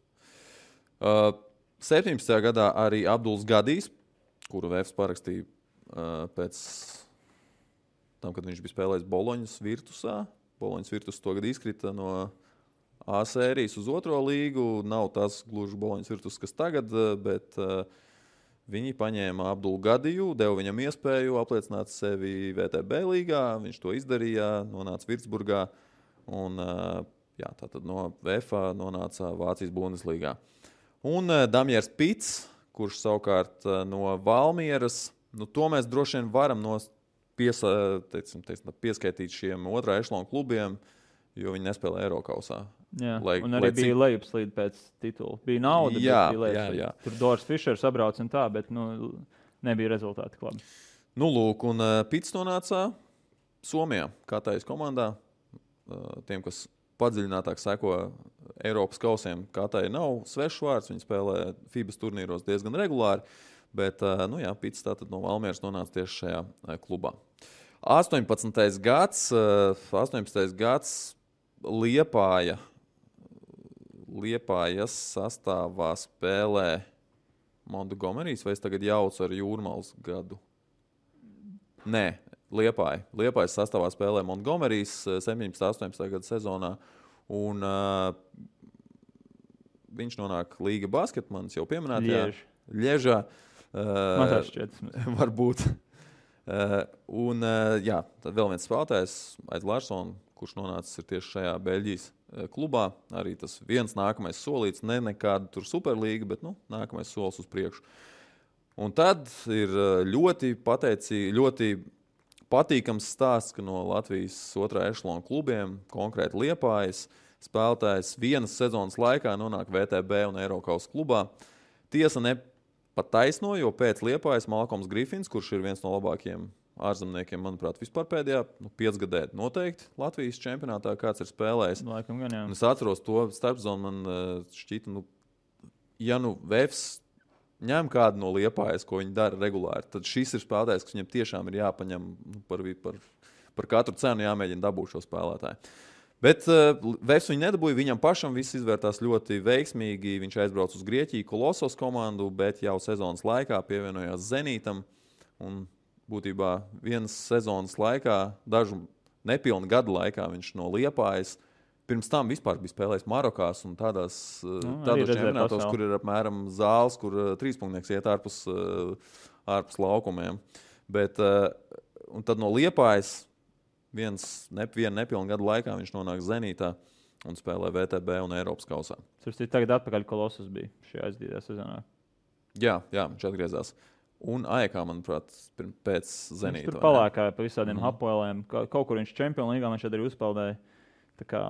17. gadā arī Abduls Gadijs, kuru VFS parakstīja pēc tam, kad viņš bija spēlējis Boloņas Virtusā. Boloņas Virtus to gadu izkrita no A sērijas uz 2. līgu. Nav tas gluži Boloņas Virtus, kas tagad, bet viņi paņēma Abdulu Gadiju, deva viņam iespēju apliecināt sevi VTB līgā. Viņš to izdarīja, nonāca Virtsburgā un tātad no VFA nonāca Vācijas Bundeslīgā. Un Damjers Pits, kurš savukārt no Valmieras, to mēs droši vien varam pieskaitīt šiem otrā ešlona klubiem, jo viņi nespēlē Eirokausā. Jā, un arī bija lejupslīde pēc titula. Bija nauda, jā. Tur Doris Fišers sabrauc un tā, bet nebija rezultāti klubi. Lūk, un Pits nonāca Somijā, Katājas komandā. Tiem, kas padziļinātāk seko Eiropas kausiem, Katāja nav svešs vārds, viņi spēlē FIBAs turnīros diezgan regulāri, bet Pits tātad no Valmieras nonāca tieši šajā klubā. 18. gads Liepājas sastāvā spēlē Montgomerys, vai es tagad jaucu ar Jūrmals gadu? Nē. Liepājas sastāvā spēlē Montgomerys 17. gada sezonā, un viņš nonāk Līga basketmanis, jau pieminētajā Ļežā. Man tā šķiet. Varbūt. Tad vēl viens spēlētājs, Aids Larsons, kurš nonācis ir tieši šajā Beļģijas klubā. Arī tas viens nākamais solīts, nekāda tur superlīga, bet nākamais solis uz priekšu. Un tad ir ļoti patīkams stāsts, ka no Latvijas otrā ešlona klubiem, konkrēti Liepājas, spēlētājs vienas sezonas laikā nonāk VTB un Eirokausas klubā. Tiesa nepataisno, jo pēc Liepājas Malkoms Griffins, kurš ir viens no labākajiem ārzemniekiem, manuprāt, vispār pēdējā 5 gadē noteikti Latvijas čempionātā, kāds ir spēlējis. Laikam gan, jā. Un es atceros to starpzonu, man šķita, ja VFS ņem kādu no Liepājas, ko viņi dara regulāri, tad šis ir spēlētājs, kas viņam tiešām ir jāpaņem par katru cenu jāmēģina dabūt šo spēlētāju. Bet VFS viņu nedabūja, viņam pašam viss izvērtās ļoti veiksmīgi. Viņš aizbrauca uz Grieķiju, Kolossos komandu, bet jau sezonas laikā pievienojās Zenītam. Un būtībā vienas sezonas laikā, dažu nepilnu gadu laikā viņš no Liepājas pirms tam vispār bija spēlējis Marokās un tādos čempionātos, kur ir apmēram zāles, kur trīspunktnieks iet ārpus laukumiem. Bet, un tad no Liepājas vienu nepilnu gadu laikā viņš nonāk Zenītā un spēlē VTB un Eiropas kausā. Tas ir tagad atpakaļ Kolossus bija šajā aizdītajā sezonā. Jā, viņš atgriezās. Un AEK, manuprāt, pēc Zenīta. Viņš tur palēkāja pa visādiem Hapoeliem. Kaut kur viņš Čempionu līgā viņš arī uzpeldēja. Tā kā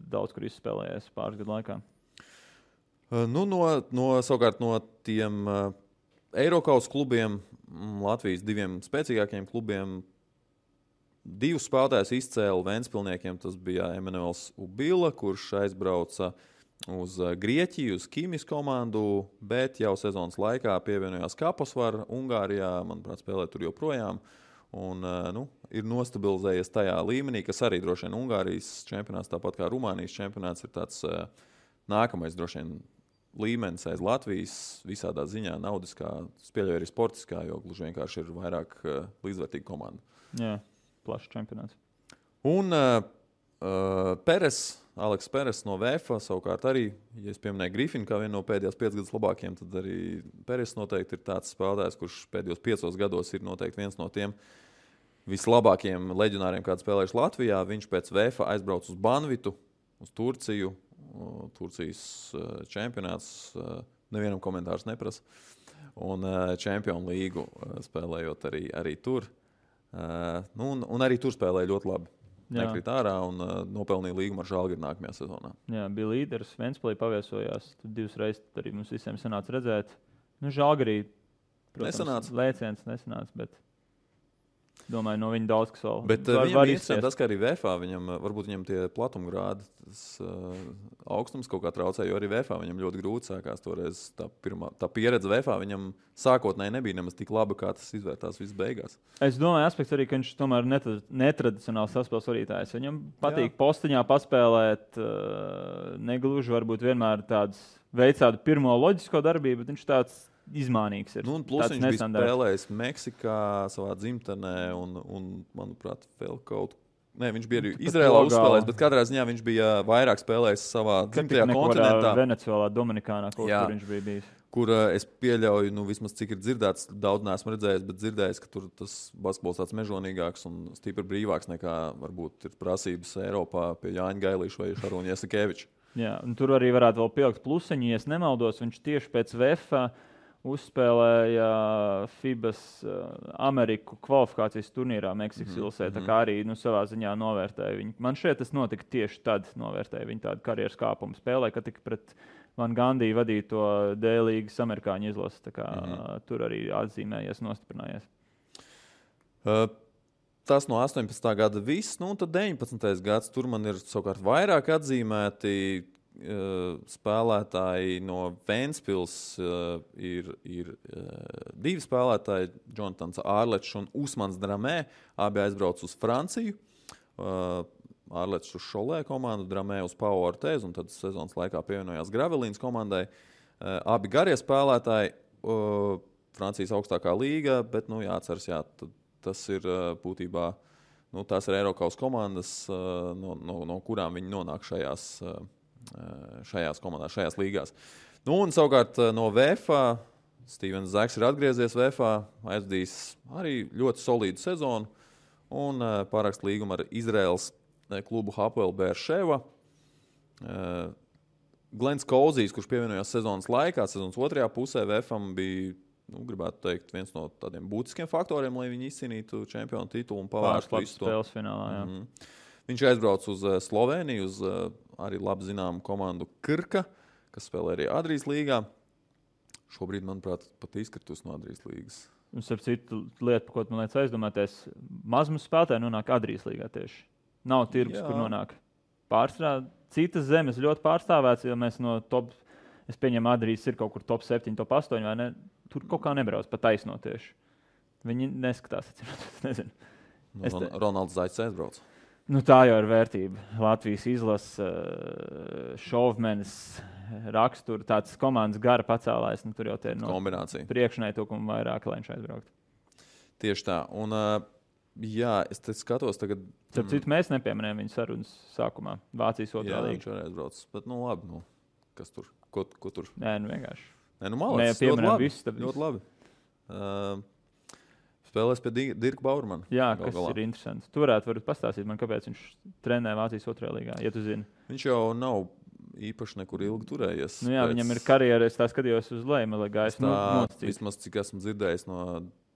daudz, kur izspēlējies pāris gadu laikā. Savukārt no tiem Eirokausas klubiem, Latvijas 2 spēcīgākajiem klubiem, 2 spēlētājus izcēla Ventspilniekiem. Tas bija Emanuels Ubila, kurš aizbrauca uz Grieķiju, uz Kīmis komandu, bet jau sezonas laikā pievienojās Kaposvar Ungārijā, manuprāt, spēlē tur joprojām. Un, ir nostabilizējies tajā līmenī, kas arī droši vien Ungārijas čempionāts, tāpat kā Rumānijas čempionāts, ir tāds nākamais droši vien līmenis aiz Latvijas visādā ziņā, naudiskā, spēļoja arī sportiskā, jo gluži vienkārši ir vairāk līdzvērtīga komanda. Jā, plašs čempionāts. Un Aleks Peres no VFA savukārt arī, ja es pieminēju Grifinu kā vienu no pēdējās 5 gadus labākiem, tad arī Peres noteikti ir tāds spēlētājs, kurš pēdējos 5 gados ir noteikti viens no tiem vislabākajiem leģionāriem, kāds spēlējuši Latvijā. Viņš pēc VFA aizbrauc uz Banvitu, uz Turciju. Turcijas čempionāts, nevienam komentārs neprasa. Un Čempionu līgu spēlējot arī tur. Un arī tur spēlēja ļoti labi. Nekrīt ārā un nopelnīja līgumu ar Žalgiri nākamajā sezonā. Jā, bija līderis, Ventspilī paviesojās. Tad 2 reizes arī mums visiem sanāca redzēt. Žalgirī, protams, lēciens nesanāca, bet domāju, no viņa daudz kas vēl. Bet viņam ir interesanti tas, ka arī VFA varbūt viņam tie platumgrādi, tas augstums kaut kā traucē, jo arī VFA viņam ļoti grūti sākās toreiz. Tā pieredze VFA viņam sākotnēji nebija nemaz tik laba, kā tas izvērtās viss beigās. Es domāju, aspekts arī, ka viņš tomēr netradicionāls saspēles vadītājs. Viņam patīk postiņā paspēlēt, negluži varbūt vienmēr veic tādu pirmo loģisko darbību, bet viņš tāds izmānīgs ir. Plus viņš bija spēlējis Meksikā, savā dzimtenē un manuprāt, vēl kaut Nē, viņš bija arī Izrēlā uzspēlējis, bet katrā ziņā viņš bija vairāk spēlējis savā dzimtajā kontinentā. Venecuēlā, Dominikānā, kur viņš bija bijis. Kur es pieļauju, vismaz cik ir dzirdēts, daudz neesmu redzējis, bet dzirdējis, ka tur tas basketbols tāds mežonīgāks un stipri brīvāks nekā varbūt ir prasības Eiropā pie Jāņa Gailīša vai Šarūņa Jasikeviča. Jā, un tur arī varētu vēl pielikt plusiņu, ja es nemaldos, viņš tieši pēc VFA uzspēlēja FIBAS Ameriku kvalifikācijas turnīrā Meksikas Ilsē, tā kā arī savā ziņā novērtēja viņu. Man šeit tas notika tieši tad, novērtēja viņu tādu karjeras kāpumu spēlē, kad tika pret Van Gandī vadīto D-līgas amerikāņu izlasi, tā kā tur arī atzīmējies, nostiprinājies. Tas no 18. gada viss, un tad 19. gads, tur man ir savukārt vairāk atzīmēti spēlētāji no Ventspils, ir 2 spēlētāji, Jonatans Ārlečs un Usmans Dramē, abi aizbrauc uz Franciju. Ārlečs uz Šolē komandu, Dramē uz Pau Ortez, un tad sezonas laikā pievienojās Gravelīnas komandai. Abi garie spēlētāji, Francijas augstākā līga, bet jāatceras, tas ir būtībā, tās ir Eirokaus komandas, no kurām viņi nonāk šajās komandās, šajās līgās. Un savukārt no VFA, Stevens Zaks ir atgriezies VFA, aizdījis arī ļoti solīdu sezonu un pārakst līgumu ar Izraels klubu Hapoel Beerševa. Glens Kauzijs, kurš pievienojās sezonas laikā, sezonas otrajā pusē VFam bija, gribētu teikt, viens no tādiem būtiskiem faktoriem, lai viņi izcīnītu čempionu titulu un pavērstu visu to. Spēles finālā, jā. Viņš aizbrauc uz Sloveniju, uz arī labi zināmu komandu Krka, kas spēlē arī Adrijas līgā. Šobrīd, manuprāt, pat izkritus no Adrijas līgas. Un starp citu lieta, par ko man liekas aizdomāties, mazums spēlētāji nonāk Adrijas līgā tieši. Nav tirgus, kur nonāk. Pārstrādā citas zemes ļoti pārstāvēts, jo mēs no top, es pieņemu Adrijas ir kaut kur top 7, top 8, vai ne? Tur kaut kā nebrauc, pat taisno tieši. Viņi neskatās, es nezinu. Ronalds Zaits aizbrauc. Tā jau ir vērtība. Latvijas izlase, šovmenis, rakstura, tāds komandas gara pacēlājs. Tur jau ir kombinācija. Priekšneitukumu vairāk, lai viņš aizbrauktu. Tieši tā. Un, es te skatos tagad. Starp citu, mēs nepieminējām viņu sarunas sākumā. Vācijas otrā līga. Jā, viņš arī aizbrauc. Bet, labi, kas tur? Ko tur? Nē, vienkārši. Nē, malāc, ļoti labi. Spēlēs pie Dirka Baurmana. Jā, kas ir interesants. Tu varētu pastāstīt man, kāpēc viņš trenē Vācijas otrajā līgā, ja tu zini. Viņš jau nav īpaši nekur ilgi turējies. Viņam ir karjera, es tā skatījos uz leju, lai gaisa nosacīt. Vismaz, cik esmu dzirdējis no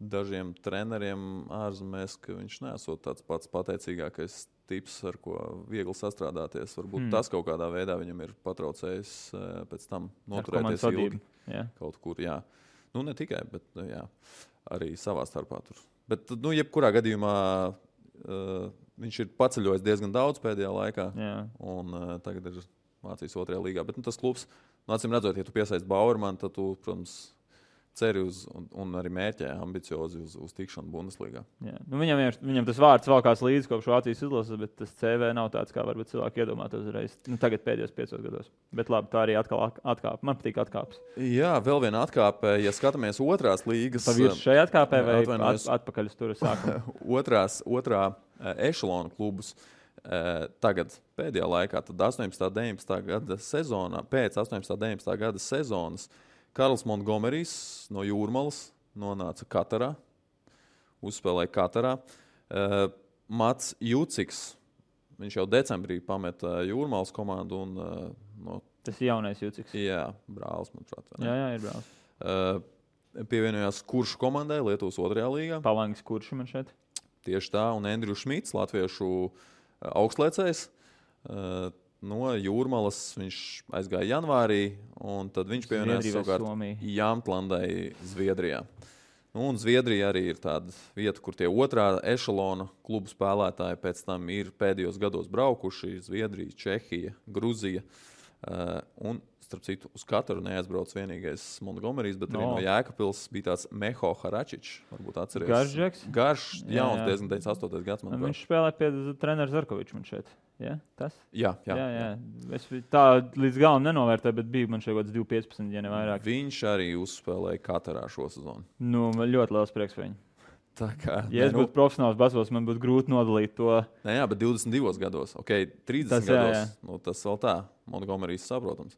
dažiem treneriem ārzemēs, ka viņš nesot tāds pats pateicīgākais tips, ar ko viegli sastrādāties. Varbūt tas kaut kādā veidā viņam ir patraucējis pēc tam noturēties ilgi. Kaut kur, jā. Ne tikai, bet arī savā starpā tur. Bet, jebkurā gadījumā viņš ir paceļojis diezgan daudz pēdējā laikā. Un tagad ir Vācijas 2. līgā. Bet tas klubs, acīm redzot, ja tu piesaisti Bauermanu, tad tu, protams, ceri uz un arī mērķē ambiciozi uz tikšanu Bundeslīgā. Viņam tas vārds valkās līdzi kopš Vācijas izlases, bet tas CV nav tāds, kā varbūt cilvēki iedomātos uzreiz. Tagad pēdējos 5 gados. Bet labi, tā arī atkal atkāpe. Man patīk atkāpes. Jā, vēl viena atkāpe. Ja skatāmies 2. līgas... Pavirs šai atkāpē vai atpakaļ uz tur sākumu? Otrā ešalona klubus. Tagad pēdējā laikā, tad 18.19. gada sezonā, pēc 18.19. gada sezonas, Karls Montgomerijs no Jūrmalas nonāca Katarā, uzspēlēja Katarā. Mats Juciks, viņš jau decembrī pameta Jūrmalas komandu. Tas ir jaunais Juciks. Jā, brālis, manuprāt. Jā, ir brālis. Pievienojās Kuršu komandai Lietuvas 2. līgā. Palangis Kuršu man šeit. Tieši tā, un Endriu Šmits, latviešu augstliecējs. No Jūrmalas viņš aizgāja janvārī, un tad viņš pievienojās savukārt Jāmtlandai Zviedrijā. Un Zviedrija arī ir tāda vieta, kur tie 2. ešalona klubu spēlētāji pēc tam ir pēdējos gados braukuši. Zviedrija, Čehija, Gruzija. Un, starp citu, uz Kataru neaizbrauc vienīgais Montgomerijs, bet arī no Jēkabpils bija tāds Meho Haračičs. Varbūt atceries. Garš, jauns, diezgan 98. gads. Viņš spēlē pie trenera Zarkoviča man šeit. Ja? Tas? Jā. Es tā līdz galam nenovērtēju, bet bija man šeit kaut kāds 2-15, ja ne vairāk. Viņš arī uzspēlēja Katarā šo sezonu. Man ļoti liels prieks par viņu. Ja es būtu profesionāls basketbols, man būtu grūti nodalīt to. Jā, bet 22 gados, 30 gados, tas vēl tā, Montgomerijs saprotams.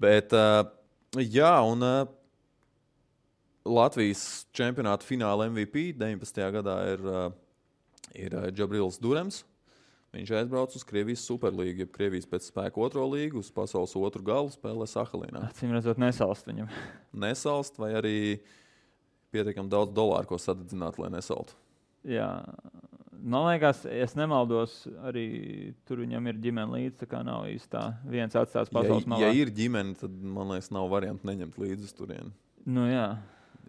Bet, un Latvijas čempionāta fināla MVP 19. gadā ir Džabrils Durems. Viņš aizbrauc uz Krievijas Superlīgu, jeb Krievijas pēc spēka 2. līgu, uz pasaules 2. galu spēlē Sahalinā. Acīm redzot, nesalst viņam. Nesalst vai arī pietiekami daudz dolāru, ko sadedzināt, lai nesaltu. Jā, man liekas, es nemaldos, arī tur viņam ir ģimene līdzi, tā kā nav īsti tā viens atstās pasaules malā. Ja ir ģimene, tad, man liekas, nav varianti neņemt līdzi uz turieni. Jā.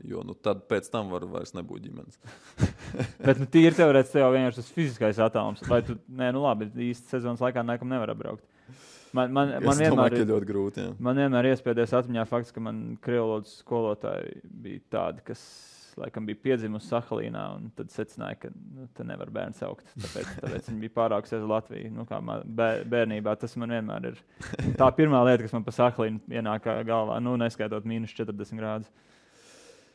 Jo tad pēc tam vairs nebūt ģimenes. Bet tīri teorētiski tev vienkārši tas fiziskais attālums. Vai tu, labi, īsti sezonas laikā nekam nevar apbraukt. Man vienmēr ir ļoti grūti. Jā. Man vienmēr iespējas atmiņā fakts, ka man krievlodas skolotāji bija tādi, kas laikam bija piedzimusi Sahalīnā, un tad secināja, ka te nevar bērnu saukt. Tāpēc viņi bija pārāks uz Latviju. Kā bērnībā tas man vienmēr ir tā pirmā lieta, kas man pa Sahalīnu ienāk galvā, neskaitot -40 grādus.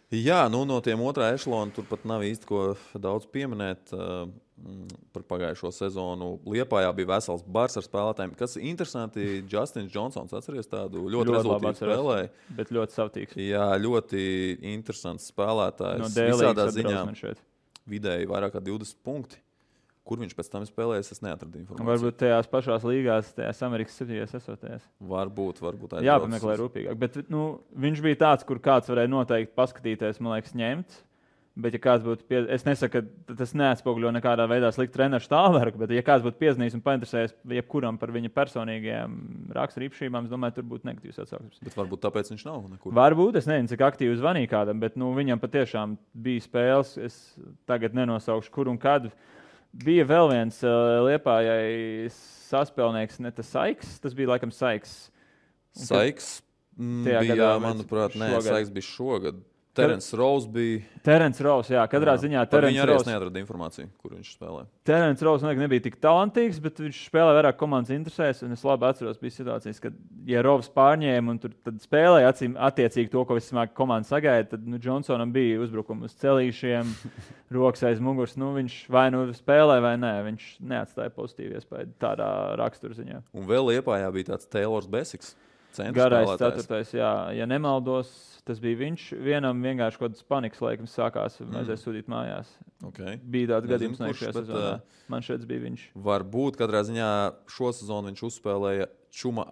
Jā, no tiem 2. ešalona tur pat nav īsti ko daudz pieminēt. Par pagājušo sezonu Liepājā bija vesels bars ar spēlētājiem. Kas ir interesanti, Justins Džonsons, atceries tādu ļoti rezultātu spēlēju. Bet ļoti savtīgs. Jā, ļoti interesants spēlētājs. No Dēlīgas ziņā vidēji vairāk kā 20 punkti. Kur viņš pēc tam spēlējas, es neatradu informāciju. Varbūt tajās pašās līgās, tajās Amerikas 7. esotajās. Varbūt. Jāpameklē rūpīgāk. Bet viņš bija tāds, kur kāds varēja noteikti paskatīties, man liekas, ņemt. Bet, ja kāds būtu, es nesaku, ka tas neatspoguļo nekādā veidā sliktu treneru stāvokli, bet, ja kāds būtu piezinājis un painteresējies jebkuram par viņa personīgajām raksturīpašībām, es domāju, tur būtu negatīvs atsauksmes. Bet varbūt tāpēc viņš nav nekur. Varbūt, es nezinu, cik aktīvi zvanīja kādam, bet viņam patiešām bija spēles. Es tagad nenosaukšu, kur un kad. Bija vēl viens Liepājai saspēlnieks, ne tas Saiks, tas bija laikam Saiks. Saiks bija, manuprāt, Saiks bija šogad. Terence Rose bija. Terence Rose, jā, katrā ziņā Terence Rose. Viņa arī neatrada informāciju, kur viņš spēlē. Terence Rose nebija tik talantīgs, bet viņš spēlē vairāk komandas interesēs. Un es labi atceros, bija situācijas, kad, ja Rovs pārņēma un tad spēlēja attiecīgi to, ko vismāk komanda sagaida, tad Johnsonam bija uzbrukumi uz celīšiem, rokas aiz muguras. Viņš vai spēlē vai nē, viņš neatstāja pozitīvu iespēju tādā raksturziņā. Un vēl Liepājā bija tāds Taylors Besiks. Garais 4. jā. Ja nemaldos, tas bija viņš. Vienam vienkārši kaut kāds panikas laikams sākās, vajadzēja sūtīt mājās. Okay. Bija tāds gadījums šajā sezonā. Man šeit bija viņš. Varbūt katrā ziņā šo sezonu viņš uzspēlēja Čuma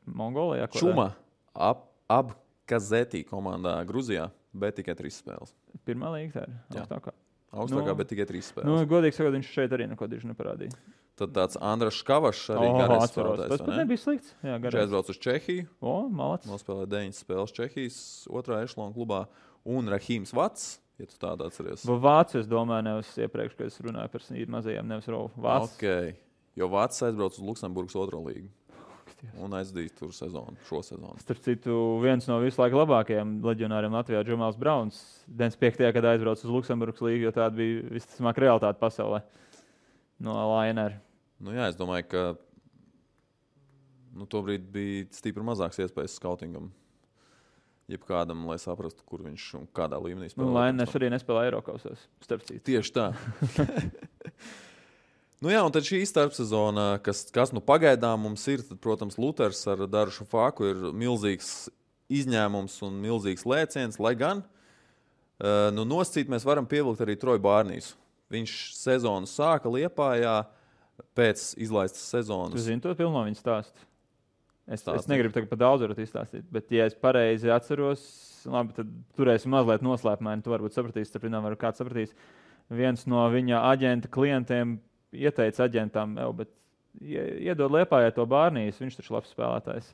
Mongolijā. Čuma Abkazetī komandā Gruzijā, bet tikai 3 spēles. Pirmā līga tā ir augstākā. Augstākā, bet tikai 3 spēles. Godīgi sakot, viņš šeit arī neko diži neparādīja. Tad tāds Andras Škavašs arī garais spēlētājs. Tas pat nebija slikts. Jā, viņš aizbrauc uz Čehiju. Malacis. Nospēlēja 9 spēles Čehijas 2. ešalona klubā. Un Rahīms Vats, ja tu tādu atceries. Vācu, es domāju, nevis iepriekš, kad es runāju par mazajiem, nevis Rovu. Vats. Okay. Jo Vācis aizbrauc uz Luksemburgas 2. līgu. Un aizdīs tur šo sezonu. Starp citu, viens no visu laiku labākajiem leģionāriem Latvijā, Džamāls Brauns, 95. gadā aizbrauca uz Luksemburgas līgu, jo tāda bija visticamāk realitāte pasaulē no Lainera. Nu jā, es domāju, ka tobrīd bija stipri mazāks iespējas skautingam. Jebkādam, lai saprastu, kur viņš un kādā līmenī spēlē. Lainers arī nespēlē Eirokausos, starp citu. Tieši tā. Nu jā, un tad šī starpsezona, kas pagaidām mums ir, tad, protams, Luters ar Darušu Fāku ir milzīgs izņēmums un milzīgs lēciens, lai gan nosacīt mēs varam pievilkt arī Troju Bārnīsu. Viņš sezonu sāka Liepājā pēc izlaistas sezonas. Tu zini to pilno viņa stāstu? Es negribu tagad par daudz varat izstāstīt, bet ja es pareizi atceros, labi, tad turēsim mazliet noslēpumaini, tu varbūt sapratīsi, starp viņām var kāds sapratīs. Viens no viņa aģenta klientiem ieteica aģentam, bet iedod Liepājai to Bārnīs, viņš taču labs spēlētājs.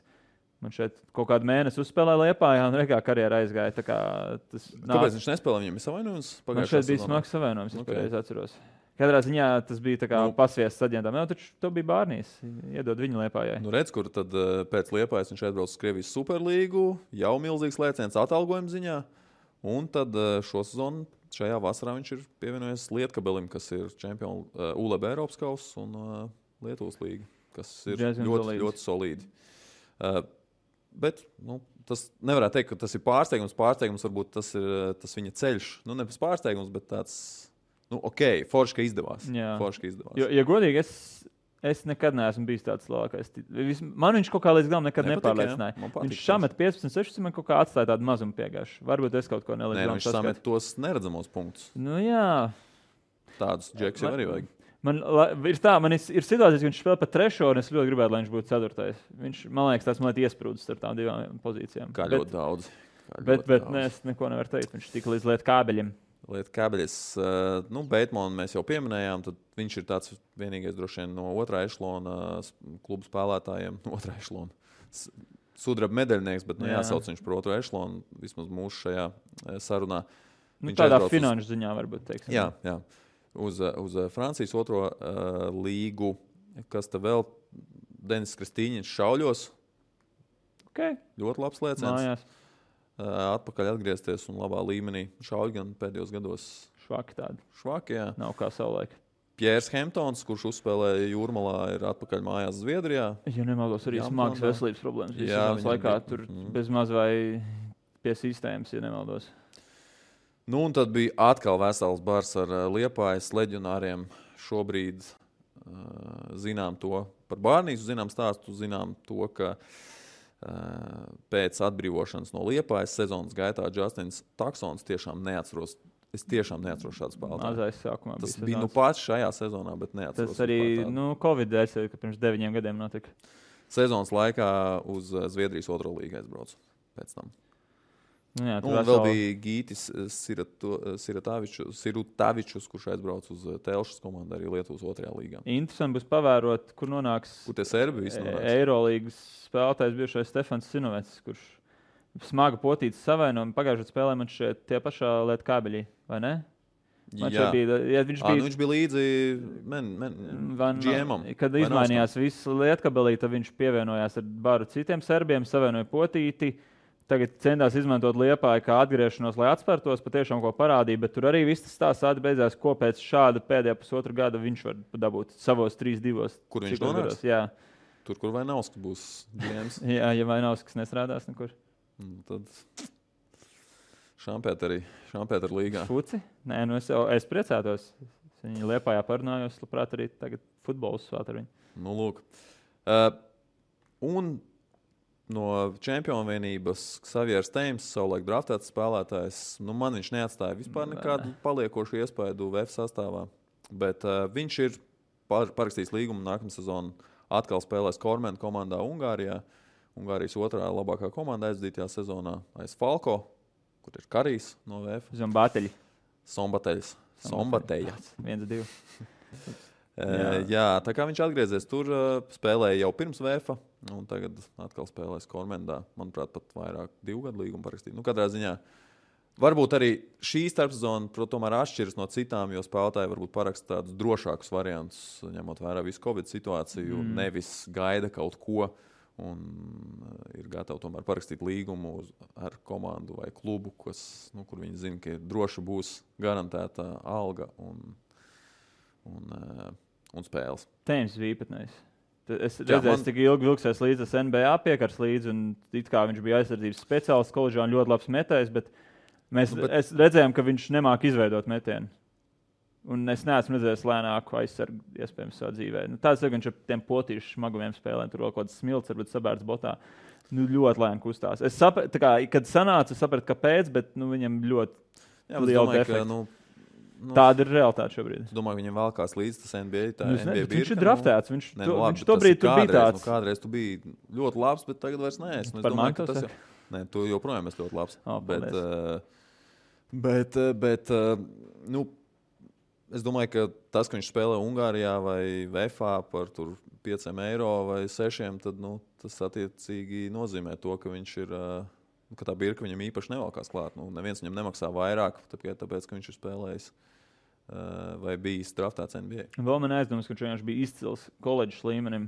Man šeit kaut kādu mēnesi uzspēlēja Liepājā un rekā karjera aizgāja. Kāpēc viņš nespēlēja? Viņam ir savainojums? Man šeit bija smags savainojums, es pareizi atceros. Katrā ziņā tas bija tā kā pasviests aģentam. Jā, taču to bija Bārnīs. Iedod viņu Liepājai. Nu redz, kur tad pēc Liepājas viņš aizbrauc uz Krievijas Superlīgu, jau milzīgs lēciens atalgojuma ziņā. Un tad šo sezonu šajā vasarā viņš ir pievienojies Lietkabelim, kas ir čempionu ULB Eiropas kausa un Lietuvas līga, kas ir ļoti solīdi. Bet tas nevarētu teikt, ka tas ir pārsteigums. Pārsteigums varbūt tas ir tas viņa ceļš. Ne pēc pārsteigums, bet tāds, forši, ka izdevās. Forši, ka izdevās. Ja godīgi, es nekad neesmu bijis tāds labākais. Man viņš kaut kā līdz galam nekad nepārliecināja. Viņš samet 15-16, man kaut kā atstāja tādu mazumu piegājuši. Varbūt es kaut ko nelīdz. Viņš samet tos neredzamos punktus. Jā. Tādus džeks jau arī vajag. Man ir situācijas, ka viņš spēlē pa 3. un es ļoti gribētu, lai viņš būtu 4. Viņš, man liekas, tās man iesprūdis starp tām divām pozīcijām. Kā ļoti daudz. Bet es neko nevaru teikt. Viņš tika līdz lietu kābeļiem. Lietu kābeļus. Beitmonu mēs jau pieminējām. Tad viņš ir tāds vienīgais droši vien no 2. ešlona klubu spēlētājiem. 2. ešlona. Sudraba medaļnieks, bet jāsauc viņš par 2. ešlonu. Vismaz mūsu šajā sarunā. Tādā finanšu ziņā varbūt teiksim. Jā. Uz Francijas 2. līgu, kas te vēl Denis Kristīņins šauļos. Okay. Ļoti labs lēciens. Atpakaļ atgriezties un labā līmenī. Šauļi gan pēdējos gados. Švaki tādi. Švaki, jā. Nav kā savulaik. Piers Hemptons, kurš uzspēlēja Jūrmalā, ir atpakaļ mājās Zviedrijā. Ja nemaldos, arī smagas veselības problēmas. Jā, laikā tur bez maz vai pie sistēmas, ja nemaldos. Un tad bija atkal vesels bars ar Liepājas leģionāriem. Šobrīd zinām to par Bārnīsu, zinām stāstu, zinām to, ka pēc atbrīvošanas no Liepājas sezonas gaitā Justins Taksons tiešām neatceros. Es tiešām neatceros šādu spēlētāju. Mazais sākumā tas bija pats šajā sezonā, bet neatceros. Tas arī Covid dēļ, ka pirms 9 gadiem notika. Sezonas laikā uz Zviedrijas 2. līgu aizbraucu pēc tam. Jā, un vēl bija Gītis Sirutavičus, kurš aizbrauc uz Telšas komandu arī Lietuvas 2. līgā. Interesanti būs pavērot, kur nonāks Eirolīgas spēlētājs bijušais Stefans Sinovets, kurš smaga potītas savainojumu. Pagājušajā spēlē man šeit tie pašā lietu kābeļī, vai ne? Viņš bija līdzi GM-am. Kad izmainījās viss lietkabelī, tad viņš pievienojās ar baru citiem serbiem, savainoja potīti. Tagad centās izmantot Liepāju kā atgriešanos, lai atspērtos, patiešām ko parādīja, bet tur arī viss tas stāsts beidzās, ko pēc šāda pēdējā pusotru gada viņš var dabūt savos 3-2. Kur viņš nonāks? Jā. Tur, kur Vainauskas būs GMs. Jā, ja Vainauskas nestrādās nekur. Tad Šampētera līgā. Fuci? Nē, es priecātos. Viņi Liepājā parunājos, labprāt arī tagad futbols svāt ar viņu. Lūk. Un no čempionu vienības Xavieris Teims, savulaik draftēts spēlētājs, man viņš neatstāja vispār nekādu paliekošu iespaidu VF sastāvā, bet viņš ir parakstījis līgumu nākamā sezonu, atkal spēlēs Kormena komandā Ungārijā. Ungārijas 2. labākā komanda aizdītajā sezonā aiz Falko, kur ir Karijs no VF. Sombateļs. 1-2. Jā, tā kā viņš atgriezies tur, spēlēja jau pirms VF, un tagad atkal spēlēs Kormendā. Manuprāt, pat vairāk 2 gadu līgumu parakstīt. Katrā ziņā Varbūt arī šī starpsezona tomēr atšķiras no citām, jo spēlētāji varbūt paraksta tādus drošākus variantus, ņemot vērā visu Covid situāciju, nevis gaida kaut ko un ir gatavi tomēr parakstīt līgumu ar komandu vai klubu, kur viņi zina, ka droši būs garantēta alga un spēles. Tēmas bija īpatnējs. Es redzēju, cik ilgi vilksies līdz tas NBA piekars līdzi, un it kā viņš bija aizsardzības speciālists koledžā un ļoti labs metējs, bet mēs redzējām, ka viņš nemāk izveidot metienu. Un es neesmu redzējis lēnāku aizsargu iespējams savā dzīvē. Tāds ir, ka viņš ar tiem potīšu smagumiem spēlē, tur vēl kaut kāds smilts, varbūt sabērts botā. Ļoti lēni kustās. Es sapratu, kad sanāca, es sapratu, kāpēc, bet viņam ļoti liela defekta. Tāda ir realitāte šobrīd. Es domāju, ka viņam vēlkās līdz tas NBA. Viņš ir draftēts. Viņš tobrīd tur bija tāds. Kādreiz tu biji ļoti labs, bet tagad vairs neesmu. Par mani tas ir? Nē, tu joprojām esi ļoti labs. Bet es domāju, ka tas, ka viņš spēlē Ungārijā vai VFA par tur €5 vai 6, tad tas attiecīgi nozīmē to, ka viņš ir... ka tā birka viņam īpaši nevalkās klāt. Neviens viņam nemaksā vairāk, tāpēc ka viņš ir spēlējis vai bijis draftēts NBA. Vēl man aizdomas, ka viņš bija izcils koledžas līmenim.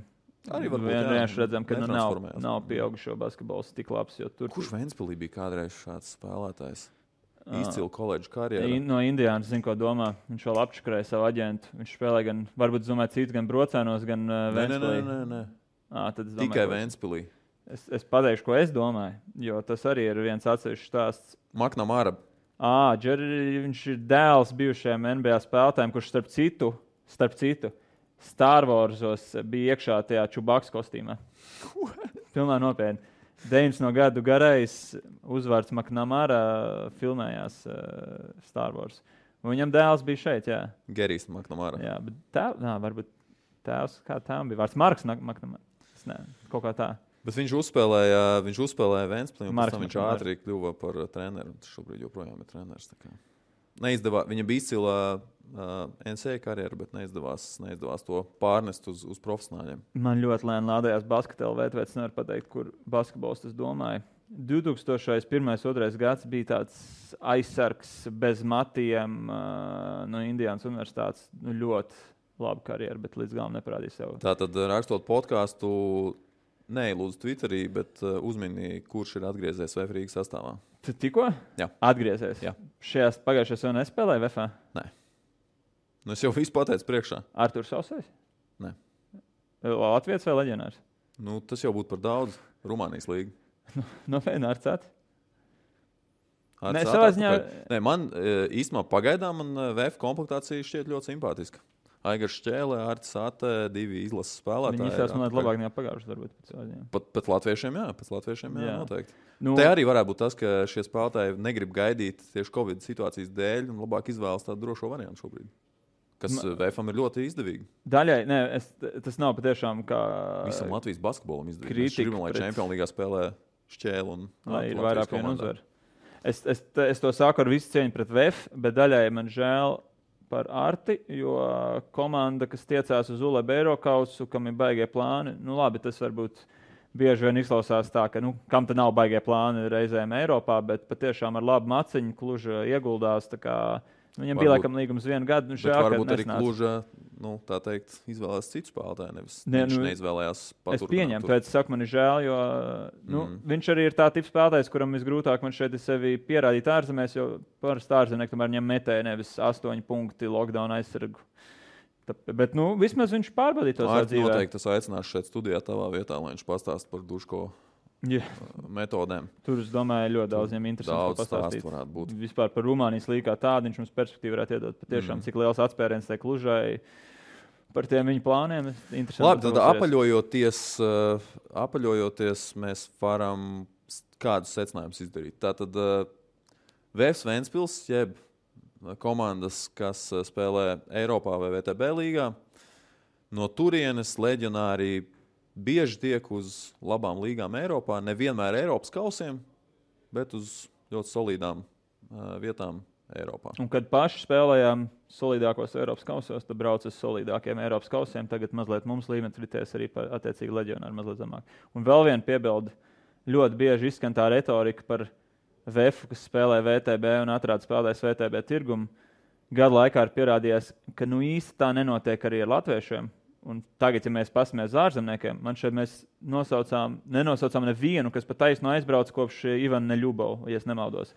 Arī varbūt vienkārši redzam, ka nav pieaugušo basketbols tik labs. Kurš Ventspilī bija kādreiz šāds spēlētājs? Izcila koledžas karjera. No Indiānas zinu, ko domā. Viņš vēl apčakarēja savu aģentu. Viņš spēlēja gan, varbūt domāju, cits gan Brocēnos, gan Ventspilī. Nē. Tikai Ventspilī. Es pateikšu, ko es domāju, jo tas arī ir viens atsevišķs stāsts. McNamara. Viņš ir dēls bijušajiem NBA spēlētājiem, kurš starp citu Star Warsos bija iekšā tajā Čubaks kostīmā. Pilnā nopietni. 90 gadu garais uzvārds McNamara filmējās Star Wars. Un viņam dēls bija šeit, jā. Gerijs McNamara. Jā, bet varbūt tēvs, kā tēvam bija vārds Marks McNamara. Kaut kā tā. Bet viņš uzspēlēja Ventspilī, un pēc tam viņš ātri kļuva par treneru. Viņš šobrīd joprojām ir treneris. Viņa bija izcila NCAA karjera, bet neizdevās to pārnest uz profesionāļiem. Man ļoti lēni lādējās basketbola, tāpēc nevaru pateikt, kur basketbols tas domāja. 2001. gads bija tāds aizsargs bez matiem no Indiānas universitātes. Ļoti laba karjera, bet līdz galam neparādīja sev. Tātad, rakstot podkāstu, neilūdzu Twitterī, bet uzmini, kurš ir atgriezies VF Rīgas sastāvā. Tu tikko? Jā. Atgriezies? Jā. Pagājušajā sezonā nespēlēja VF? Nē. Es jau visu pateicu priekšā. Arturs Sausais? Nē. Latvijas vai leģionārs? Tas jau būtu par daudz. Rumānijas līga. Nopietni, Arcāt? Nē, man īstenībā pagaidām VF komplektācija šķiet ļoti simpātiska. Aigars Šķēle, Artis Ate, 2 izlases spēlētāji. Viņi izsās man labāk nekā pagājušas, varbūt. Pat latviešiem, jā, noteikti. Te arī varētu būt tas, ka šie spēlētāji negrib gaidīt tieši Covid situācijas dēļ un labāk izvēlas tādu drošo variantu šobrīd. Kas VFam ir ļoti izdevīgi. Daļai, tas nav patiešām kā... Visam Latvijas basketbolam izdevīgi. Mēs gribam, lai Čempionu līgā spēlē Šķēle un lai ir vairāk vienu uzvaru. Es to sāku ar visu cieņu pret VF, bet daļai man žēl par Arti, jo komanda, kas tiecās uz ULEB Eirokausu, kam ir baigie plāni, labi, tas varbūt bieži vien izklausās tā, ka kam te nav baigie plāni reizēm Eiropā, bet patiešām ar labu maciņu Kluža ieguldās, tā kā viņam bija laikam līgums 1 gadu. Varbūt arī Kluža, tā teikt, izvēlējās citu spēlētāju, nevis viņš neizvēlējās paturināt. Es pieņemu, tāpēc saku, man ir žēl, jo viņš arī ir tā tips spēlētājs, kuram visgrūtāk man šeit ir sevi pierādīt ārzemēs, jo parasti ārzemnieki tomēr ņem metēju nevis 8 punkti lockdown aizsargu. Bet vismaz viņš pārbaudīja to savu dzīvē. Noteikti es aicināšu šeit studijā tavā vietā, lai viņš pastāst par Duško metodēm. Tur, es domāju, ļoti daudz viņam interesanti pastāstīt. Vispār par Rumānijas līgu kā tādu viņš mums perspektīvu varētu iedot. Patiešām, cik liels atspēriens tai Klužai par tiem viņu plāniem. Labi, tad apaļojoties, mēs varam kādus secinājumus izdarīt. Tātad VF Ventspils, jeb komandas, kas spēlē Eiropā vai VTB līgā, no turienes leģionāri bieži tiek uz labām līgām Eiropā, nevienmēr Eiropas kausiem, bet uz ļoti solīdām vietām Eiropā. Un kad paši spēlējām solīdākos Eiropas kausos, tad brauc uz solīdākiem Eiropas kausiem, tagad mazliet mums līmenis rities arī attiecīgi leģionāri mazliet zemāk. Un vēl viena piebilde, ļoti bieži izskan tā retorika par VF, kas spēlē VTB un atrāda spēlētājs VTB tirgumu, gadu laikā ir pierādījies, ka īsti tā nenotiek arī ar latviešiem. Un tagad, ja mēs paskatāmies uz ārzemniekiem, man šeit mēs nenosaucām nevienu, kas pat taisno aizbrauc kopš Ivana Neļubova, ja es nemaldos.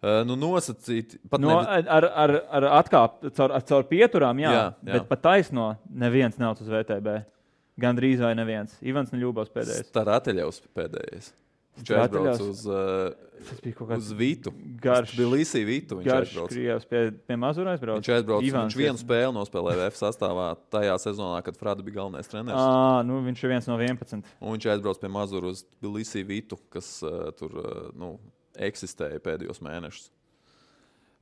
Nosacīt, pat ar atkāp, caur pieturām, jā. Bet pat taisno neviens nav uz VTB. Gandrīz vai neviens. Ivans Neļubovs pēdējais. Starateljevs pēdējais. Viņš aizbrauc uz Vitu. Tbilisī Vitu. Garš Krievs pie Mazura aizbrauc. Viņš vienu spēli nospēlēja VF sastāvā tajā sezonā, kad Frada bija galvenais treneris. Viņš ir viens no 11. Un viņš aizbrauc pie Mazura uz Tbilisī Vitu, kas tur eksistēja pēdējos mēnešus.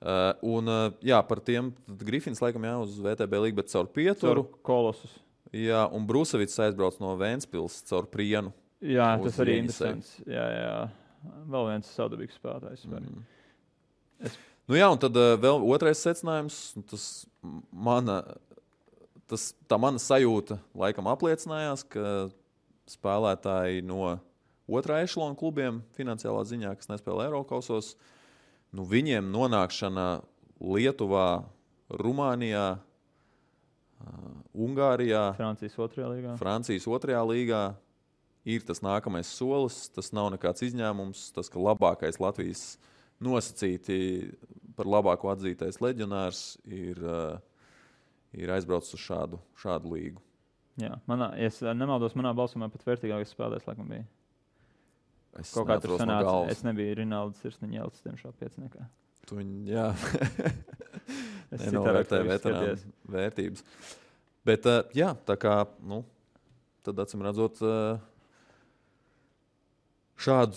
Par tiem Grifins laikam uz VTB līgu, bet caur pieturu. Caur Kolosus. Jā, un Brusevits aizbrauc no Ventspils caur Prienu. Jā, tas arī ir interesants. Jā. Vēl viens saudabīgs spēlētājs. Un tad vēl otrais secinājums. Tā mana sajūta laikam apliecinājās, ka spēlētāji no otrā ešalona klubiem finansiālā ziņā, kas nespēlē Eirokausos, viņiem nonākšana Lietuvā, Rumānijā, Ungārijā, Francijas otrajā līgā ir tas nākamais solis. Tas nav nekāds izņēmums. Tas, ka labākais Latvijas nosacīti par labāko atzītais leģionārs ir aizbraucis uz šādu līgu. Jā, es nemaldos, manā balsumā pat vērtīgākais spēlētājs laikam bija. Es kaut kā tur sanāca. Es nebiju Rinalds Sirsniņa Jelcis, tiemžēl pieciniekā. Jā. Es nenovērtēju veterānu vērtības. Bet, tā kā, tad acīm redzot, šādu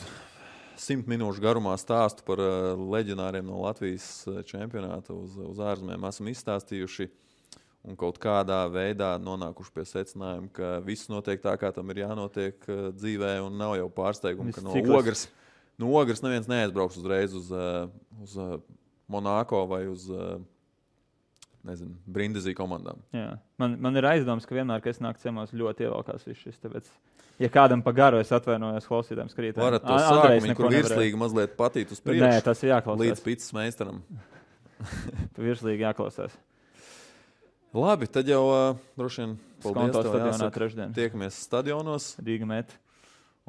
100 minūšu garumā stāstu par leģionāriem no Latvijas čempionāta uz ārzemēm esam izstāstījuši un kaut kādā veidā nonākuši pie secinājuma, ka viss notiek tā, kā tam ir jānotiek dzīvē, un nav jau pārsteigumu, ka no Ogres neviens neaizbrauks uzreiz uz Monako vai uz Brindizī komandām. Jā. Man ir aizdoms, ka vienmēr, kad es nāku ciemos, ļoti ievalkās viss šis. Tāpēc, ja kādam pa garu es atvainojos klausītājiem skatītājiem. Varat to sākumu, kur virslīgi mazliet patīt uz priekšu. Nē, tas ir jāklausās. Līdz picas meistaram. Virslīgi jāklausās. Labi, tad jau droši vien paldies tev jāsaka. Tiekamies stadionos. Rīga met.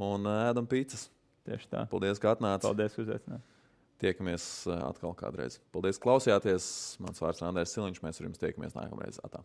Un ēdam picas. Tieši tā. Paldies, ka atnāci. Paldies, uzaicināt. Tiekamies atkal kādreiz. Paldies, klausījāties. Mans vārds Andrēs Siliņš. Mēs ar jums tiekamies nākamreiz. Atā.